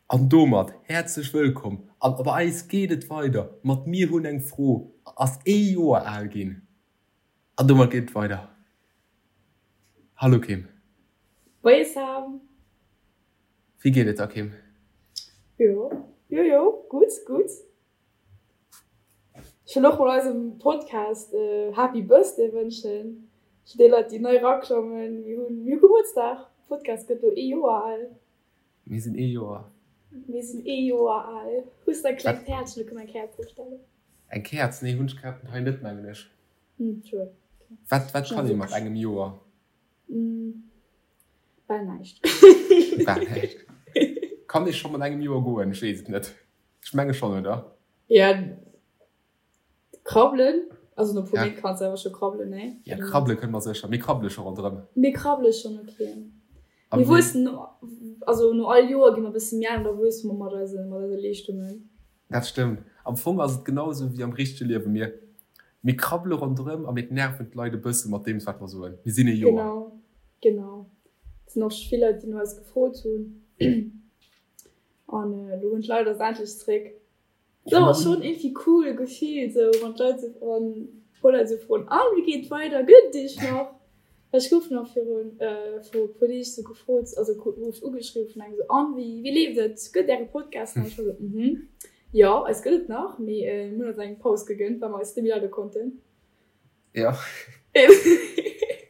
An domat häerzlech wëllkomm an bei eis geet et weider mat Mir hunn eng Fro ass ee Joer al ginn an domat geet et weider. Hallo Kim. Moie Sam. Wéi geet et der Kim? Jo, jo, jo, gutt, gutt. Ech wëll och mol eisem Podcast Happy Birthday wënschen. Fir déi Leit déi nei eraklommen, mir hunn, mir hu Gebuertsdag, de Podcast gëtt elo ee Joer al. Mir sinn ee Joer. Mir sinn ee Joer al. Hues de eng kleng Käerz? Ech wëll eng Käerz opstellen. Eng Käerz? Nee, hunn ech grad hei net, mengen ech. Hm, schued. Wat, wat kann ee mat engem Joer? Bal näischt. Bal näischt. Kann ee scho mat engem Joer goen? Ech weess et net. Ech menge schonn, oder? Ja, krabbelen. Also no puer Méint kanns de awer scho krabbelen, nee? Ja, krabbele kënne mer sécher. Mir krabbele scho ronderëm. Mir krabbele schonn, okay. Mir wuessen, also no all Joer gi mer e bësse méi al an da wuesse mer mat eise, mat eise Leeschtungen. Dat stëmmt. Am Fong ass et genau esou wéi am richtege Liewen. Mir, mir krabbele ronderëm a mir nerven d'Leit e bësse mat deem, wat mer soen. Mir sinn ee Joer. Genau, genau. Et sinn och scho vill Leit, déi no eis gefrot hunn. An elo hunn d'Leit eis endlech zréck. Dat ass schonn iergendwéi cool Gefill sou, wann d'Leit sou, wann e puer Leit sou froen, an wéi geet et weider, gëtt et iech nach? Well ech gouf nach virun viru e puer Deeg sou gefrot, also gouf ech ugeschriwwen vun engem sou, an wéi wéi leeft et, gëtt äre Podcast nach? Ech war sou, mhm, jo eis gëtt et nach, mee mir hunn eis eng Paus gegënnt, well mer eis net méi leide konnten. Jo,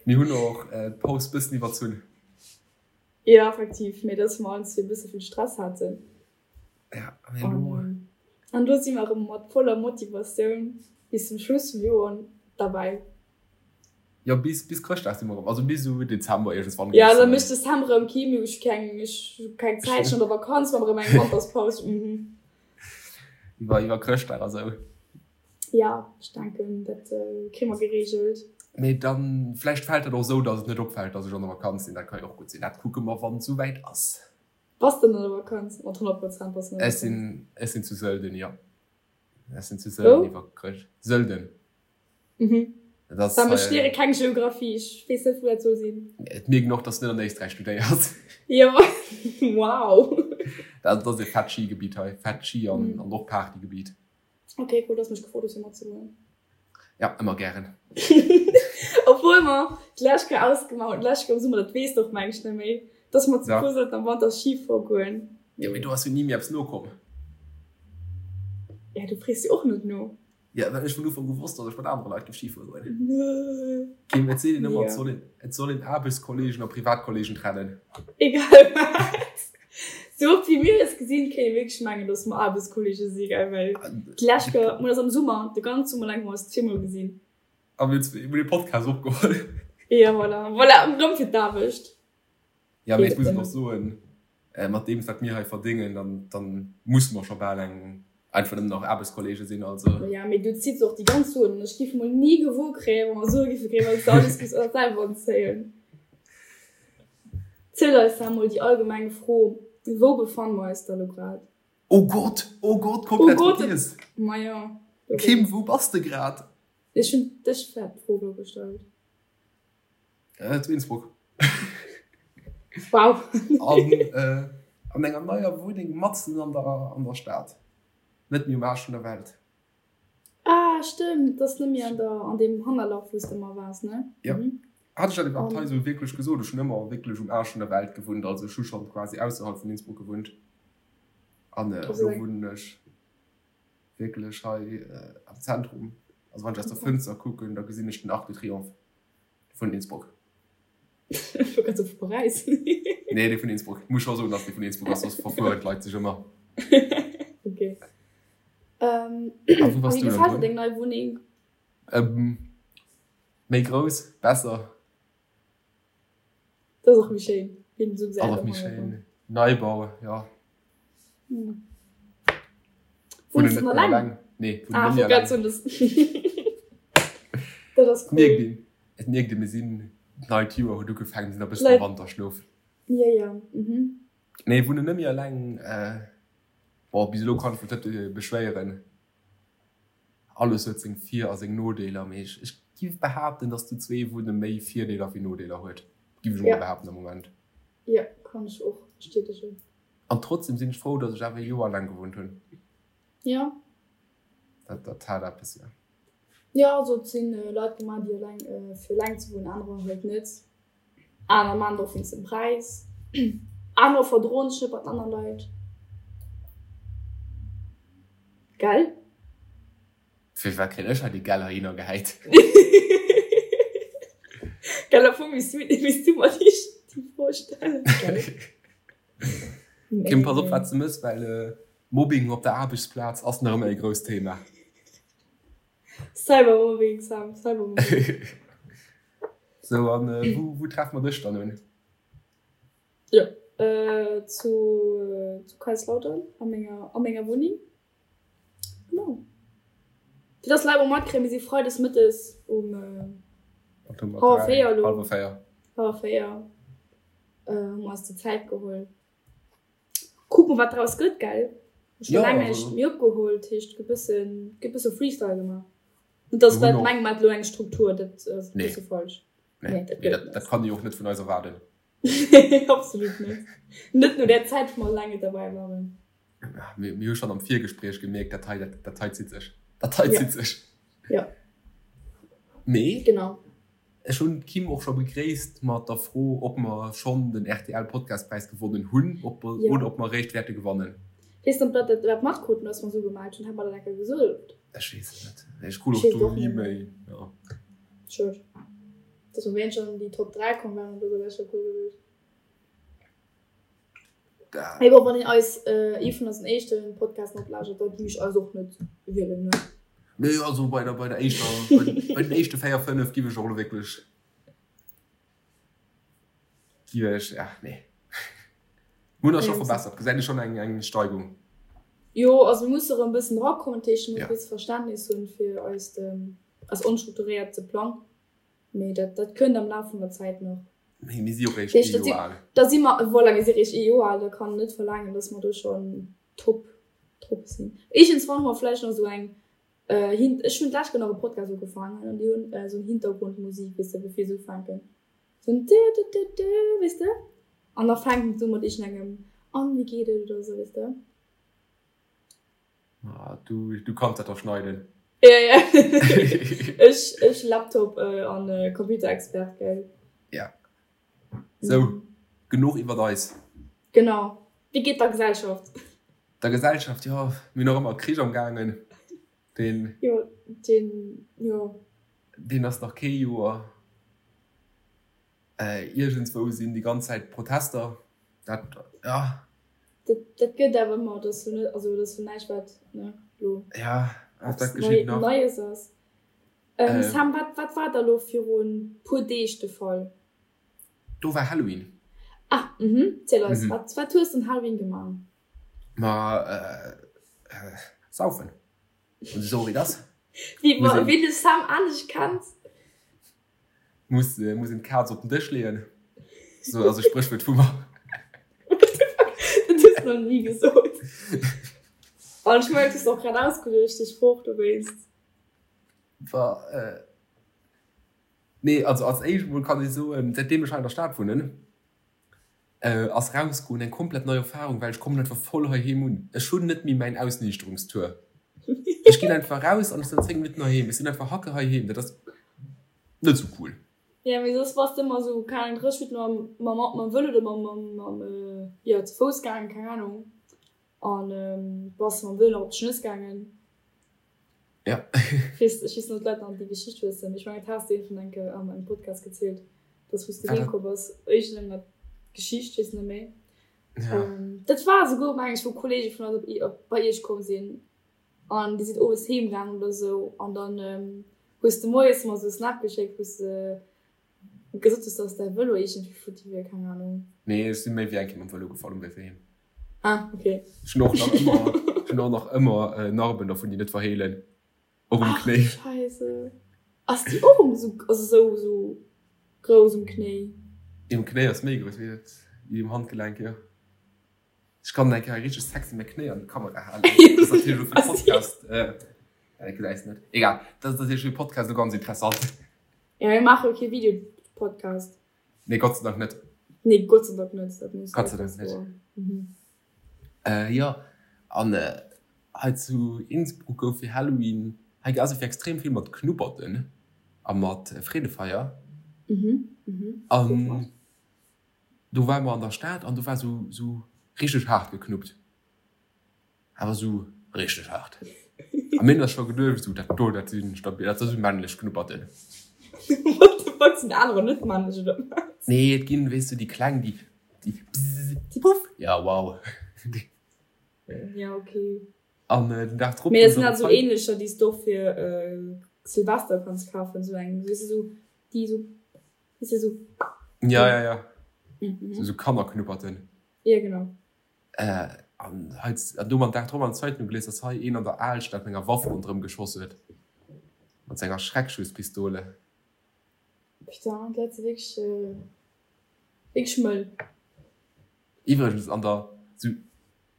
mir hunn och d'Paus bëssen iwwerzunn. Jo effektiv, mee dass mer allen zwee e bësse vill Stress haten. Ja, mee elo. An elo si mer erëm mat voller Motivatioun bis zum Schluss vum Joer derbäi. Jo, bis, bis Chrëschtdag si mer erëm, also bis esou Dezember iergendswann. Ja, da mécht Dezember erëm kee méi, ech hu keng, ech hu keng Zäit, ech sinn an der Vakanz, maache mer erëm eng Wanterspaus, mhm. Iwwer, iwwer Chrëschtdag a sou. Ja, ech denken, dat kréie mer gereegelt. Mee dann, vläicht fält dat och esou, datt et net opfält, datt ech an der Vakanz sinn, dat ka jo och gutt sinn. Dat kucke mer, wann et souwäit ass. Bass de an der Vakanz? Mat 100 Prozent bass de an der Vakanz. Ech sinn zu Sölden, jo. Ech sinn zu Sölden iwwer Chrëscht. Sölden. Mhm. Dat ass. Well ech léiere keng Geographie, ech weess net wou dat soll sinn. Et mierkt een och, dass de net an Éisträich studéiers. Jo, wow. Dat ass e fett Skigebitt hei, fett Ski an och Partygebitt. Ok, cool, dass mech gefrot hues fir matzegoen. Ja, ëmmer gären. Obwuel mer d'lescht Kéier ausgemaach hunn, d'lescht Kéier am Summer, dat weess de och meng ech net méi, dass mer zu puer sollten am Wanter Ski fuere goen. Jo, mee do ass jo ni méi eppes nokomm. Ja, du frees jo och net no. Ja, well ech vun Ufank u wosst, dass ech mat anere Leit géif Ski fuere goen. Kim, et seet een ëmmer, et soll een, et soll een Aarbechtskolleegen a Privatkolleegen trennen. Egal wat. Sou oft wéi mir eis gesinn, kéint ee wierklech mengen, dass mer Aarbechtskolleege si, gell? Well d'lescht Kéier, mir hunn eis am Summer, de ganze Summer laang hu mer eis zweemol gesinn. A mir hunn dee Podcast opgeholl. Jo, voilà. Voilà, erëm fir d'Aarbecht. Jo, mee ech muss et och soen, mat deem, wat mir hei verdéngen, dann, dann musse mer scho bal eng, einfach nëmmen nach Aarbechtskolleege sinn, also. Jo, mee du zitts och déi ganz Suen. Ech géif mol ni gewuer kréien, wa mer Sue géife kréien, well s de alles géifs selwer anzéien. Ziel eis da mol déi allgemeng Fro, Wou befanne mer eis da lo grad? Oh Gott, oh Gott, komplett oh Gott, vergiess. Ma jo. Kim, wou bass de grad? Ech hunn dech grad d'Fro elo gestallt. Äh, zu Innsbruck. Wow. An, äh, an enger neier Wunneng matzen an der, an der Stad. Net méi um Aarsch vun der Welt. Ah, stëmmt, dat ass net méi an der, an deem Hannerlach, wou s de ëmmer waars, ne? Ja. Mhm. Hat ech dat iwwerhaapt hei esou wierklech gesot? Ech hunn ëmmer wierklech um Aarsch vun der Welt gewunnt, also ech hu schonn quasi ausserhalb vun Innsbruck gewunnt. An elo wunnen ech wierklech hei am Zentrum. Also wann ech aus der Fënster kucken, da gesinn ech den Arc de Triomphe vun Innsbruck. Ech wollt grad soe vu Paräis. Nee, dee vun Innsbruck. Muss scho soen, dass dee vun Innsbruck ass, soss verfueren d'Leit sech ëmmer. Ok. A wou bass du dann? Wéi gefält der deng nei Wunneng? Méi grouss, besser. Dat ass och méi schéin, wéi den esou gesäit. Ass och méi schéin. Neibau, jo. Wunns de nach eleng? Nee, wunnen net méi eleng. Dat ass cool. Mierkt een, et mierkt een, mir sinn, d'neit Joer huet ugefaangen, mir sinn nach e bëssen am Wanterschlof. Jo, jo, mhm. Nee, wunnen net méi eleng. Bon, bis elo kann ech mech net beschwéieren. Alles huet seng Vir a seng Nodeeler, mee ech ech giff behaapten, dass zu zwee wunne méi Virdeeler wéi Nodeeler huet. Giff ech emol behaapten am Moment. Jo, kann ech och bestätegen. An trotzdem sinn ech frou, datt ech awer e Joer eleng gewunnt hunn. Jo. Dat, dat hat eppes, jo. Jo, also et sinn Leit gemaach, déi eleng, fir eleng ze wunnen, anerer halt net. Aner maan et och wéinst dem Präis. Anerer verdroen sech net mat anere Leit. Gell? Firwat kréien ech hei déi Gell heihinner gehäit? Gell, am Fong misst du, misst du mer déi Fro stellen, gell? Kim, pass op wat s de mëss, well Mobbing op der Aarbechtsplaz ass nach ëmmer e grousst Thema. Cybermobbing, Sam, Cybermobbing. Sou, an wou, wou treffe mer dech dann un? Jo, zu, zu Kaiserslautern, a menger, a menger Wunneng. Genau. Fir dass d'Leit och matkréien, mir si freides mëttes um hallwer 4 elo. Hallwer 4. Hallwer 4 hu mer eis déi Zäit geholl. Kucke mer, wat draus gëtt, gell? Ech hu laang näischt méi opgeholl, dat heescht, gëtt bëssen, gëtt bësse Freestyle gemaach. Net dass d'Leit mengen, mer hätte elo eng Struktur, dat ass e bësse falsch. Nee, dat gëtt et net. Dat kann ee jo och net vun eis erwaarden. Absolut net. Net no där Zäit, wou mer eleng net derbäi waren. Mir hu schonn am Virgespréich gemierkt, dat hei, dat hei zitt sech. Dat hei zitt sech. Jo. Mee. Genau. Ech hunn d'Kim och scho begréisst mat der Fro, ob mer schonn den RTL-Podcastpräis gewonnen hunn ob, jo. oder ob mer eréischt wäerte gewannen. Weess net, ob dat dat matkruten, datt mer esou gemellt hunn. Hat mer dat eng Kéier gesot? Ech weess et net. Ech krut och do ni méi. Jo. Schued. Dass mer wéinst schon an déi Top 3 komm wären oder sou wär scho cool gewiescht. Mee bon, wann een eis ee vun eisen éischten Podcasten oplauschtert, da gi ech eis och net wielen, ne? Nee, also bei der, bei der éischter, bei, bei den éischte 4, 5 giff ech och elo wierklech, giff ech, ja, nee. Mir hunn eis scho verbessert, gesäit ee schonn eng, eng Steigung. Jo, also mir musse erëm e bëssen erakommen, dat heescht, mir musse e bësse Verständnis hunn fir eist, eis onstrukturéierte Plang. Mee dat, dat kënnt am Laf vun der Zäit nach. Mee mir si jo réischt ee Joer al. Da si mer, voilà, mir si réischt ee Joer al, da kann een net verlaangen, dass mer do schonn top drop sinn. Iergendswann hu mer vläicht nach esou eng Hin-, ech hunn d'lescht Kéier nach e Podcast ugefaangen an déi hunn esou eng Hintergrundmusik, weess de, bevir se ufänken. Esou en dö-dö-dö-dö, weess de? An da fänken se u mat iergendengem An, wéi geet et oder esou, weess de? Ah, du, du kanns dat doch schneiden. Ja, ja. ech, ech Laptop äh, an äh, Computerexpert, gell? Ja. So, mhm. genuch iwwer eis. Genau. Wie geht der Gesellschaft? Der Gesellschaft, ja, mir nach ëmmer Krich am gaangen. Den, jo, den, jo. Den ass nach kee Joer. Iergendswou sinn déi ganz Zäit Protester. Dat, ja. Dat, dat gëtt awer ëmmer. Dat ass jo net, also dat ass jo näischt, wat, ne, lo. Ja, dat geschitt nach. Neies ass. Sam, wat, wat war da lo virun puer Deeg de Fall? Do war Halloween. Ah, mhm. Ziel eis, wat, wat hues de un Halloween gemaach? Ma, saufen. Esou wéi dat. Wéi, wéi de Sam anescht kennt. Muss, muss een d'Kaz op den Dësch leeën. Sou ass e Spréchwuert vu mer. What the fuck? Dat hues de nach ni gesot. An ech mengen, du hues och grad ausgeluecht, dee Sproch dowéinst. Wa, nee, also als éischt emol kann ech soen, säitdeem ech hei an der Stad wunnen, ass rausgoen eng komplett nei Erfahrung, well ech kommen einfach voll heiheem un. Ech hunn net méi mäin Ausniichterungstour. Ech ginn einfach raus an ech sinn an 10 Minutten heiheem. Ech sinn einfach hacke heiheem. Dat ass net sou cool. Ja, mee soss bass de ëmmer sou, keng Ahnung, 30 Minutten mam, mam, mam Vëlo oder mam, mam, mam, jo, ze Fouss gaangen, keng Ahnung. An bass mam Vëlo nach op d'Schnëss gaangen. Ja. Ech weess, ech weess net, ob d'Leit nach déi Geschicht wëssen. Ech mengen, dat has de iergendwann eng Kéier an engem Podcast gezielt, dass wou s de heem komm bass, iergendenger Geschicht, weess net méi. Ja. Dat war esouguer, meng ech, wou Kollege vun eis op, op, bei iech komm sinn an déi sinn owes heem gaangen oder esou an dann hues de moies mer esou e Snap geschéckt, wou s de Gesot hues, dass däi Vëlo iergendwéi futti wier, keng Ahnung. Nee, ech si méi wéi eng Kéier mam Vëlo gefall um Wee fir heem. Ah, ok. Ech hunn och nach ëmmer, ech hunn och nach ëmmer Narben dervun, déi net verheelen. Och um Knéi. Ach, Scheisse. Ass déi och um esou, also esou, esou grouss um Knéi? Déi um Knéi ass méi grouss wéi dat, déi um Handgelenk, jo. Ech kann eng Kéier richteg sexy mäi Knéi an d'Kamera halen. Dat ass natierlech elo fir de Podcast, äh, gesäis net. Egal, dat ass natierlech fir de Podcast elo ganz interessant. Ja, mir maache jo kee Video-Podcast. Nee, Gott sei Dank net. Nee, Gott sei Dank net. Dat muss Gott sei Dank net. Mhm. Jo, an hei zu Innsbruck gouf fir Halloween, hei ass et extrem vill mat Knupperten a mat Freedefeier. An do ware mer an der Stad an do war sou sou richteg haart geknuppt. Awer sou richteg haart. A mir hunn eis scho geduecht, sou dat do, dat si stabil, dat si sou männlech Knupperten. What the fuck, sinn anerer net männlech oder wat? Nee, et ginn, weess du, déi kleng, déi, déi bzzz, puff, ja wow. Ja, okay. An den Dag drop. Mee dat sinn halt sou ähnlecher, déi s de och fir Silvester kanns kafen, sou eng, weess de, sou déi sou, weess de, sou. Ja, ja, ja. Sou Kannerknupperten. Ja, genau. An hei, an do am Dag drop an der Zeitung gelies, dass hei een an der Alstad mat enger Waff ronderëm geschoss huet. Mat senger Schreckschusspistole. Putain, d'Leit si wierklech, wierklech mëll. Iwwregens an der, sou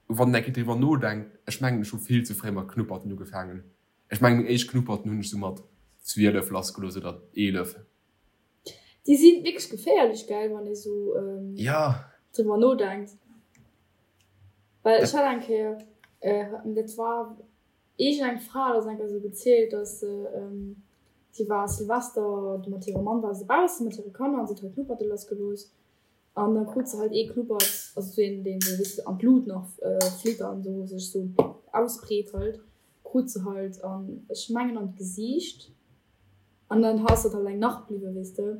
wann een eng Kéier driwwer nodenkt, ech mengen ech hu vill ze fréi mat Knupperten ugefaangen. Ech mengen meng éischt Knupperten hunn ech sou mat 12 lassgelooss oder 11. Déi si wierklech geféierlech, gell, wann ee sou driwwer nodenkt. Well ech hat eng Kéier, dat war iergend eng Fra hat eis eng Kéier sou gezielt, datt se, si war Silvester mat hirem Mann war se bausse mat hire Kanner an se huet halt Knupperte lassgelooss. An da krut se halt ee Knuppert, also sou een, deen sou e bëssen an d'Lut nach flitt an sou sech sou ausbreet halt, krut se halt an, ech mengen an d'Gesiicht. An dann ass dat halt eng Nacht bliwwen, weess de.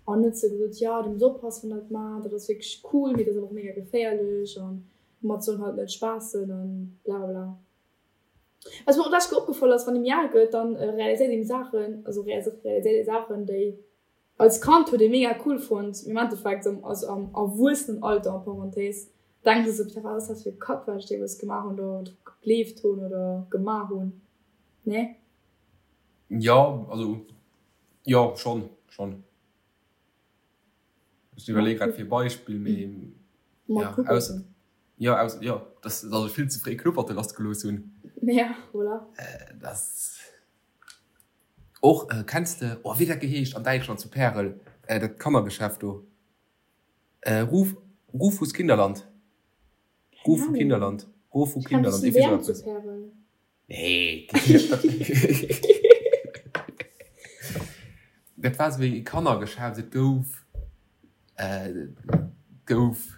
An huet se gesot, jo, du muss oppassen, wann dat maacht, dat ass wierklech cool, mee dat ass awer och mega geféierlech an domat soll een halt net spaassen an blablabla. Wat mir och d'lescht Kéier opgefall ass, wann ee méi al gëtt, dann realiséiert een Saachen, also realiséiert ee Saachen, déi als Kand huet ee mega cool fonnt, mee am Endeffekt, also am Erwuessenenalter en parenthèse, denkt ee sou, wat ass dat fir e Kack, wat ech deemools gemaach hunn oder dru gegleeft hunn oder gemaach hunn, nee? Jo, also jo schonn, schonn. Ech iwwerleeë grad fir e Beispill, mee ja, ausser, jo, ausser, jo, dass, dass ech vill ze fréi Knupperte lassgelooss hunn. Ja, voilà. Dass och, kenns de, oh wéi dat geheescht an Däitschland zu Pärel, dat Kannergeschäft do, Ruf, Rufus Kinderland, Rufu Kinderland, Rofu Kinderland, iergendwéi sou eppes. Nee, dat war esou e Kannergeschäft. Et gouf, et gouf,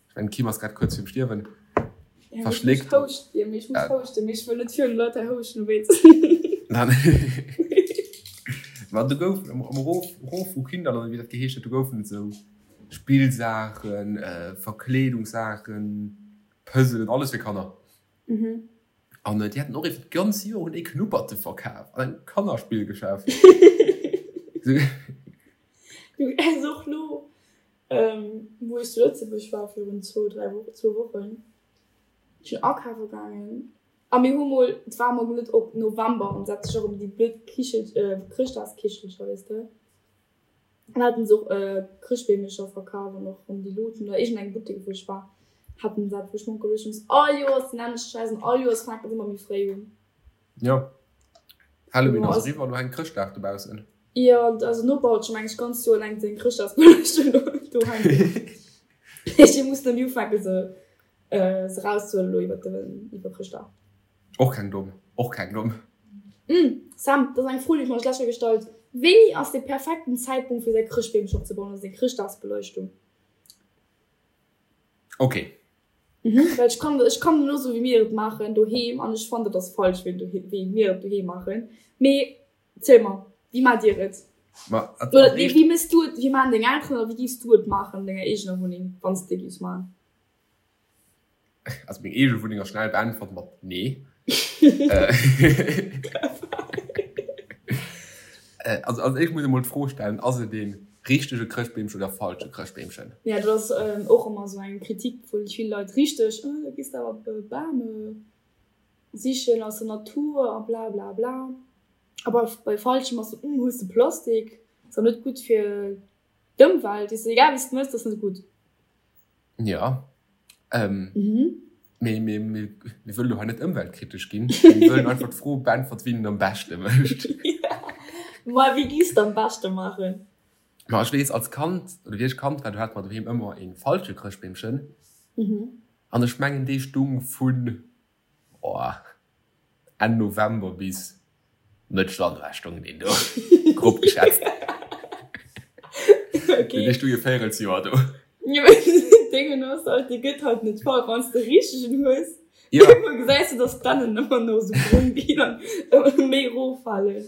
ech mengen d'Kim ass grad kuerz virum Stierwen, verschléckt. Ech houscht, ech muss houschten, mee ech wëll net virun de Leit hei houschten, wéi. Ma do gouf am Rof, Rofu Kinderland oder wéi dat geheescht huet, do goufen et esou Spillsaachen, Verkleedungssaachen, Puzzelen, alles fir Kanner. An déi haten och iwwer d'ganz Joer hunn déi Knupperte verkaf an engem Kannerspillgeschäft. Du es och lo, wou ech zu Lëtzebuerg war virun zwou, dräi Wochen, zwou Wochen, ech sinn akafe gaangen a mir hu mol, et war mol net op November an et sech och ëm déi blöd Kichel, Chrëschtdagskichelcher, weess de. An haten se och Chrëschtbeemercher verkaf an och rëm déi Luuten oder iergend eng Buttek wou ech war haten se dat wou ech mer geduecht hunn all Joers den nämmlechte Schäiss an all Joers fänkt et ëmmer méi fréi un. Jo, Halloween ass eriwwer, elo hänkt Chrëschtdag dobaussen. Jo, also Noper huet scho meng ech ganz Joer laang seng Chrëschtdagsbeleuchtung do hänken. Ech muss nëmme ufänke se se rauszehuelen elo iwwer den iwwer Chrëschtdag. Och keng domm, och keng domm. Umm Sam, dat ass eng Fro déi ech mer lech gestallt. Wéini ass de perfekten Zäitpunkt fir säi Chrëschtbeemchen opzebauen, also seng Chrëschtdagsbeleuchtung? Ok. Mhm, well ech kann, ech kann elo soen wéi mir et maachen doheem an ech fannen dat ass falsch wéi wéi mir et doheem maachen. Mee ziel mer, wéi maacht dir et? Ma als Oder nee, wéi méchs du et, wéi maachen deng Elteren oder wéi giffs du et maachen an denger eegener Wunneng, wann s de giffs maachen? Also meng eege Wunneng ass schnell beäntwert mat nee. Also als éischt muss ee mol d'Fro stellen, ass et ee richtege Chrëschtbeemchen oder falsche Chrëschtbeemchen? Ja dat ass och ëmmer esou eng Kritik vu vill Leit, richteg, da gees de awer Bam sichen aus der Natur a bla bla bla. A bei falschem ass esou, hues de Plastik, ass awer net gutt fir d'Ëmwelt, weess de, egal wéi s de mëss, dat ass net gutt. Ja. Ähm, mhm. Mee, mee, mee, mir wëllen do hei net ëmweltkritesch ginn. Mir wëllen einfach d'Fro beäntwert, wien et am beschte mécht. Ja. Ma wéi giss de am beschte maachen? Ma ech weess, als Kand, oder wéi ech Kand war, do hate mer doheem ëmmer ee falsche Chrëschtbeemchen. Mhm. An ech mengen dee stung vun oh Enn November bis Mëtt Januar stung deen do, grob geschätzt. Okay. Dee stung e Véierelsjoer do. Jo mee Déngen ass halt, dee gëtt halt net voll, wann s de richtegen hues. Jo. Iergendwann gesäis de, dass d'Dännen ëmmer no sou brong ginn an ëmmer méi eroffalen.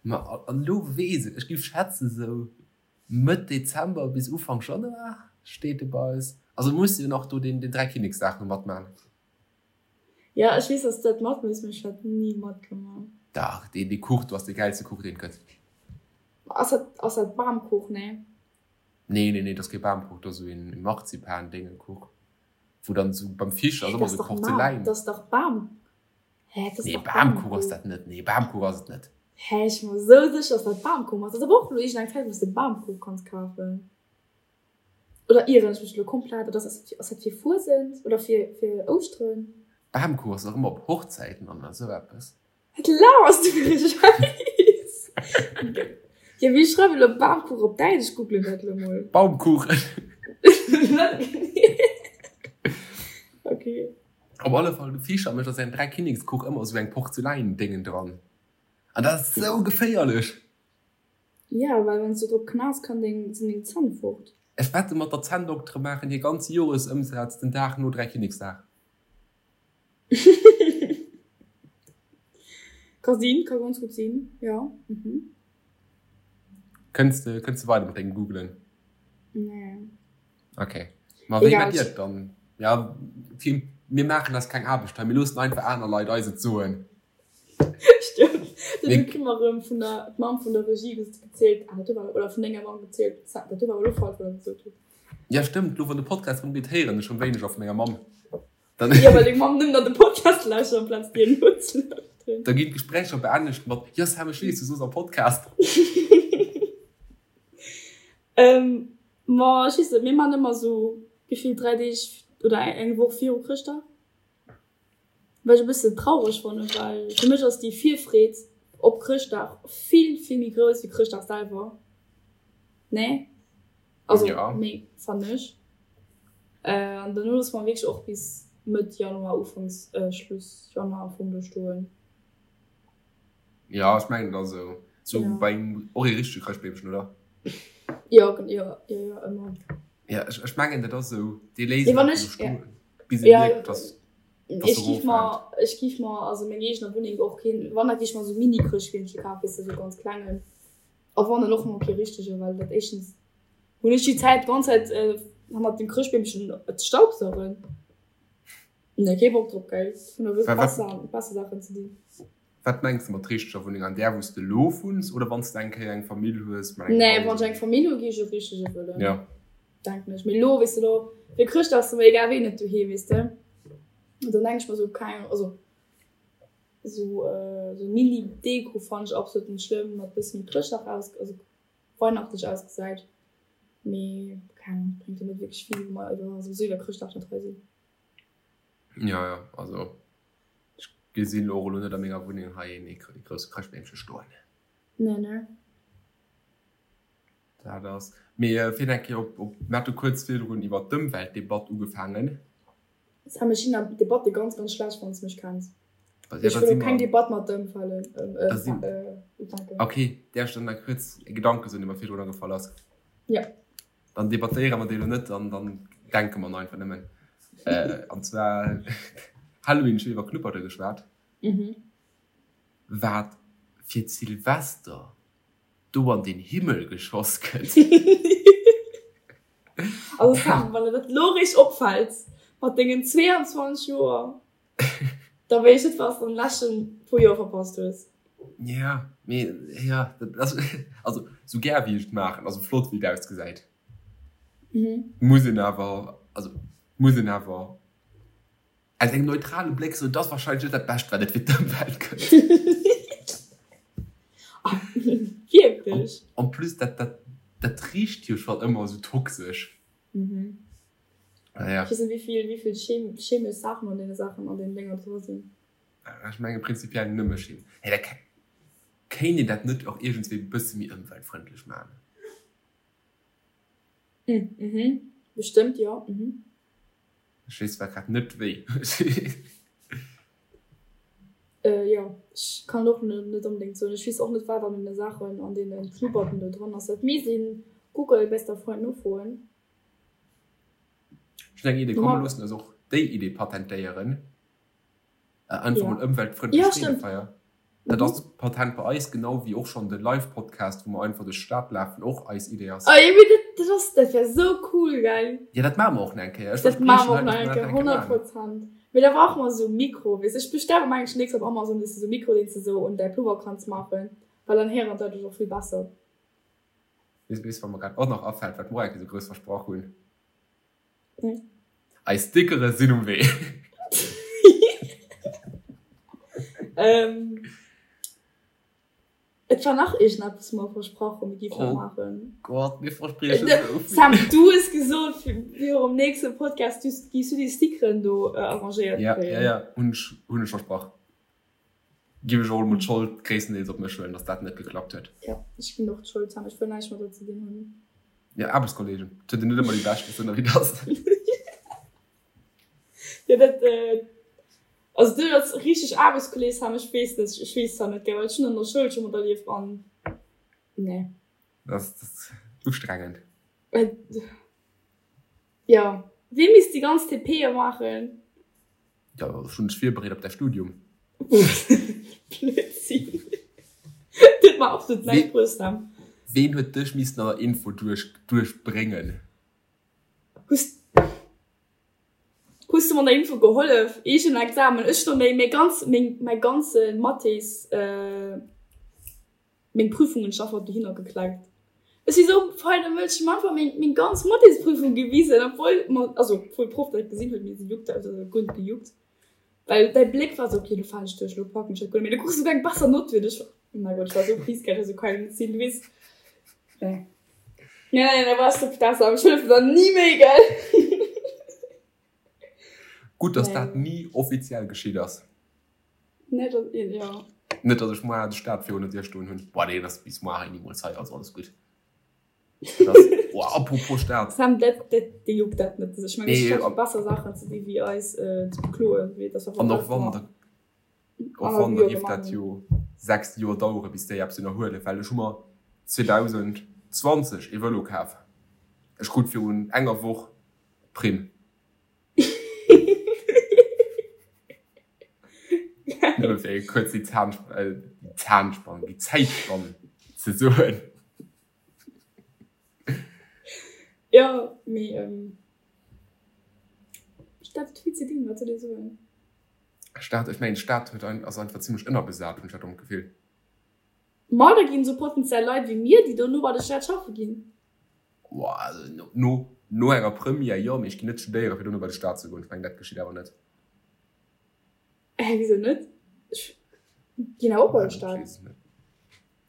Ma an elo weess ech, ech géif schätzen sou Mëtt Dezember bis Ufank Januar steet e bei eis. Also muss jo nach do deen Dräikinneksdag no matman. Jo, ech weess, dass du dat mat muss, mee ech hat ni matgemaach. Dach, deen dee Kuch do ass dee gäilste Kuch deen et gëtt. Ass dat, ass dat Bamkuch? Nee. Nee, nee, nee, dat ass kee Bamkuch, dat ass esou een Marzipan-Déngekuch, wou dann esou beim Fisch ass Hä, ëmmer dat ass esou dach Mar, Porzeläin. dat ass dach Bam, hä, dat ass Nee, dach Bamkuch ass Bamkuch. dat net, nee, Bamkuch ass et net. Hä, ech si mer esou sécher, dass dat Bamkuch ass. Dat ass awer och elo iergendeng Zäit, wou s de Bamkuch kanns kafen. Oder ieren ech mech elo komplett? Oder ass ass dat fir Fuesent oder fir fir Ouschteren? Bamkuch ass dach ëmmer op Hochzäiten an esou eppes. Wat laberst du fir e Schäiss? Jo, wéi schreiwen elo Bamkuch op Däitsch? Ech googlen dat elo mol. Baumkuchen. Okay. Op alle Fall, de Fischer mécht a säin Dräikinnekskuch ëmmer esou eng Porzeläindéngen dran. An dat ass esou geféierlech! Jo, well wann s du drop knaus, kann deng, sinn deng Zänn fort. Ech wette mat der Zänndoktere maachen hir ganze Joresëmsaz den Dag no Dräikinneksdag. Ka sinn, ka ganz gutt sinn, jo. Mhm. Kënns de, kënns de weider mat dengem Googlen? Nee. Okay. Ma wéi Egal. mat dir dann? Ja, mir maachen eis keng Aarbecht hei, mir loossen einfach aner Leit eis et soen. Stëmmt. Dann hu mer erëm vun der d'Mamm vun der Regie gezielt, ah dat do war, oder vun denger Mamm gezielt, dat do war elo falsch, wat der gesot hutt. Ja stëmmt, elo wann de Podcast erëm geet, héieren ech erëm wéineger vu menger Mamm. Dann Jo, well deng Mamm nëmmen an de Podcast lauschtert amplaz dir nozelauschteren. Da ginn d'Gespréicher beendegt mat, Jo Sam, ech weess, du soos am Podcast. Ma ech weess net, mir man ëmmer esou gefillt 3 Deeg oder eng Woch viru Chrëschtdag. Wat ech e bëssen traureg fannen, well fir mech ass déi Virfreed op Chrëschtdag vill, vill méi grouss wéi Chrëschtdag selwer. Nee? Also, Ja. nee, fannen ech. An dono loosse mer wierklech och bis Mëtt Januar, Ufanks, Schluss Januar am Fong do stoen. Ja, ech mengen, et ass esou. Sou Ja. bei engem, och ee richtege Chrëschtbeemchen, oder? Jo, jo, jo, jo, ëmmer. Ja, ech, ech mengen, dat ass esou, dee léisst Nee, wann einfach ech, esou ja. stoen, bis e Ja, mierkt, dass, dass ech e giff mer, roffält. ech giff mer, also meng eegener Wunneng och keen, wann da giff ech mer esou Mini-Chrëschtbeemche kafen, weess de, esou ganz klengen. A wann dann och mol kee richtege, well dat éischtens hunn ech déi Zäit d'ganz Zäit hannert dem Chrëschtbeemchen ze staubsaugen. Nee, kee Bock drop, gell. Hunn da wierklech Wa, wat, besser, besser Saachen ze dinn. Wat mengs de mat richteger Wunneng? An där, wou s de elo wunns oder wann s de eng Kéier eng Famill hues mat engem Nee, wann Haus? ech eng Famill hu gi ech e richtege wëllen, Ja. denken ech. Mee elo, weess de, elo fir Chrëschtdag ass mer egal ween net doheem, weess de. An dann denke ech mer esou, keng Ahnung, also esou esou Mini-Deko fannen ech absolut net schlëmm, mat bësse méi Chrëschtdag aus, also weihnachtlech ausgesäit. Mee keng Ahnung, bréngt jo net wierklech vill, wa mer iwwer souwisou iwwer Chrëschtdag net hei sinn. Ja, ja, also ech gesinn och elo net a menger Wunneng hei een ee grousse Chrëschtbeemche stoen. Nee, ne. Dat ass. Mee fir eng Kéier op, op, mir hate kuerz virdrun iwwer d'Ëmweltdebatt ugefaangen. Sam, ech sinn an Debatte ganz, ganz schlecht, wann s de mech kenns. Ja, Ech da wëll si och keng mer. Debatt mat der ëmfalen, Da sinn. ufänken. Okay, däerf ech dann nach kuerz e Gedanke soen, dee mer virdrun agefall ass? Ja. Dann debattéiere mer déi elo net an dann denke mer einfach nëmmen. An zwar Halloween, ech hunn iwwer Knupperte geschwat. Wat fir d'Silvester do an den Himmel geschoss gëtt. Also Sam, wann der dat elo eréischt opfält, mat dengen 22 Joer, da weess ech net, wat s de an de leschte puer Joer verpasst hues. Ja, mee ja, dat ass, also sou gär wéi ech et maachen, also flott wéi et ausgesäit, muss een awer, also muss een awer aus engem neutrale Bléck soen, et ass wahrscheinlech net dat Bescht wat et fir d'Ëmwelt gëtt. Wierklech? En plus dat, dat, dat richt jo schonn ëmmer esou toxesch. Naja. Ech weess net wéivill, wéivill chemesch Saachen an deene Saachen, an deenen Dénger dra sinn. Ech menge prinzipiell nëmme Chim. Hey, da kéint een dat net och iergendswéi e bësse méi ëmweltfrëndlech maachen? Mhm. Bestëmmt, jo. Mhm. Ech weess zwar grad net wéi. Jo, ech kann och net onbedéngt soen. Ech weess och net wat an deene Saachen, an deene Knupperten do dran ass. Dat misst een Google, bester Freund, nofroen. Ech hunn eng Idee, komm mir loossen eis och déi Idee patentéieren. Einfach mol ëmweltfrëndlech Freedefeier. Dat ass Patent bei eis, genau wéi och schonn de Live-Podcast, wou mer einfach duerch d'Stad lafen, och eis Idee ass. Oh jo, mee dat, dat ass, dat wär sou cool, gell? Jo, dat maache mer och nach eng Kéier. Ech Dat maache mer och nach eng Kéier, 100 Prozent. Mee da brauche mer esou Mikro, weess. Ech bestelle mer mengen ech nächst op Amazon, weess de, esou Mikro, deen s de esou un däi Plover kanns maachen, well dann héieren d'Leit dech och vill besser. Weess, weess, wat mer grad och nach afält, wat mer och eng Kéier esou grouss versprach hunn? Eis Stickere sinn um Wee. Ähm, et war nach iergendeppes, wou mer versprach hunn, mir géifen dat maachen. Oh Gott, mir verspriechen esou vill. Sam, du hues gesot, virum nächste Podcast giffs du déi Stickeren do arrangéiert kréien. Ja, ja, ja, hunn ech, hunn ech versprach. Giff ech och emol d'Schold gréisstendeels op mech huelen, dass dat net geklappt huet. Jo, ech ginn och d'Schold, Sam, ech wëll näischt mat der ze dinn hunn. Jo, Aarbechtskollegen, et huet een net ëmmer déi beschten Sënner wéi dass. Jo, dat, also du als richteg Aarbechtskolleg, Sam, ech weess net, ech weess zwar net, gell, well ech hunn an der Schoul scho materlieft an nee. Dat ass ustrengend. Jo, wee misst déi ganz TPe maachen? Jo, ech hunn dech virbereet op däi Studium. Blödsinn. Dat huet mer absolut näischt bruecht, Sam. Ween huet dech missen an der Info duerch duerchbréngen? Hues hues du mer an der Info gehollef? Eegen Examen, ech hunn méi méi ganz meng mäi ganze Mathés Meng Prüfung hunn ech einfach dohinner gekleckt. Ech si sou feine Mënsch, ech hunn einfach meng meng ganz Mathésprüfung gewisen, obwuel mer, also obwuel d'Proff dat gesinn huet, mee si juckt dat, also guer net gejuckt, well däi Bléck war sou, okay, lo falen ech duerch, lo packen ech dat guer net méi, du krus souguer eng besser Nott wéi ech. Oh mäi Gott, ech war sou pissed, ech war sou kein net sinn, du weess, nee, nee, nee, da wars du besser, ech hëllefen der ni méi, gell. Gutt, dass dat ni offiziell geschitt ass. Net dass een, jo. Net dass ech moar de Staat virun der Dier stoen hunn. Boah deen ass bis moar hei nimools hei, also alles gutt. Dat ass, boah apropos Staat. Sam, dat, dat, dee juckt dat net. Ech mengen, ech hat besser Saachen ze di wéi eis ze bekloen, wéi dass An och wann, da, och wann, da géif dat jo 6 Joer dauere bis déi eppes ënnerhuelen, well ech hu mer 2020 ee Vëlo kaf. Ech krut virun enger Woch d'Primm. Nëmme fir kuerz déi Zahnspann, déi Zäitspann ze soen. Jo, mee Stad huet vill ze dinn, wat soll ee soen? Stad, ech mengen d'Stad huet ein, ass einfach zimlech ënnerbesat, hunn ech dat am Gefill. Ma da ginn esou potenziell Leit wéi mir, déi dono bei der Stad schaffe ginn. No, no enger Première jo, mee ech ginn net studéieren, fir dono bei de Staat ze goen. Ech mengen, dat geschitt awer net. Hä, wisou net? Ech ginn awer och bei de Staat.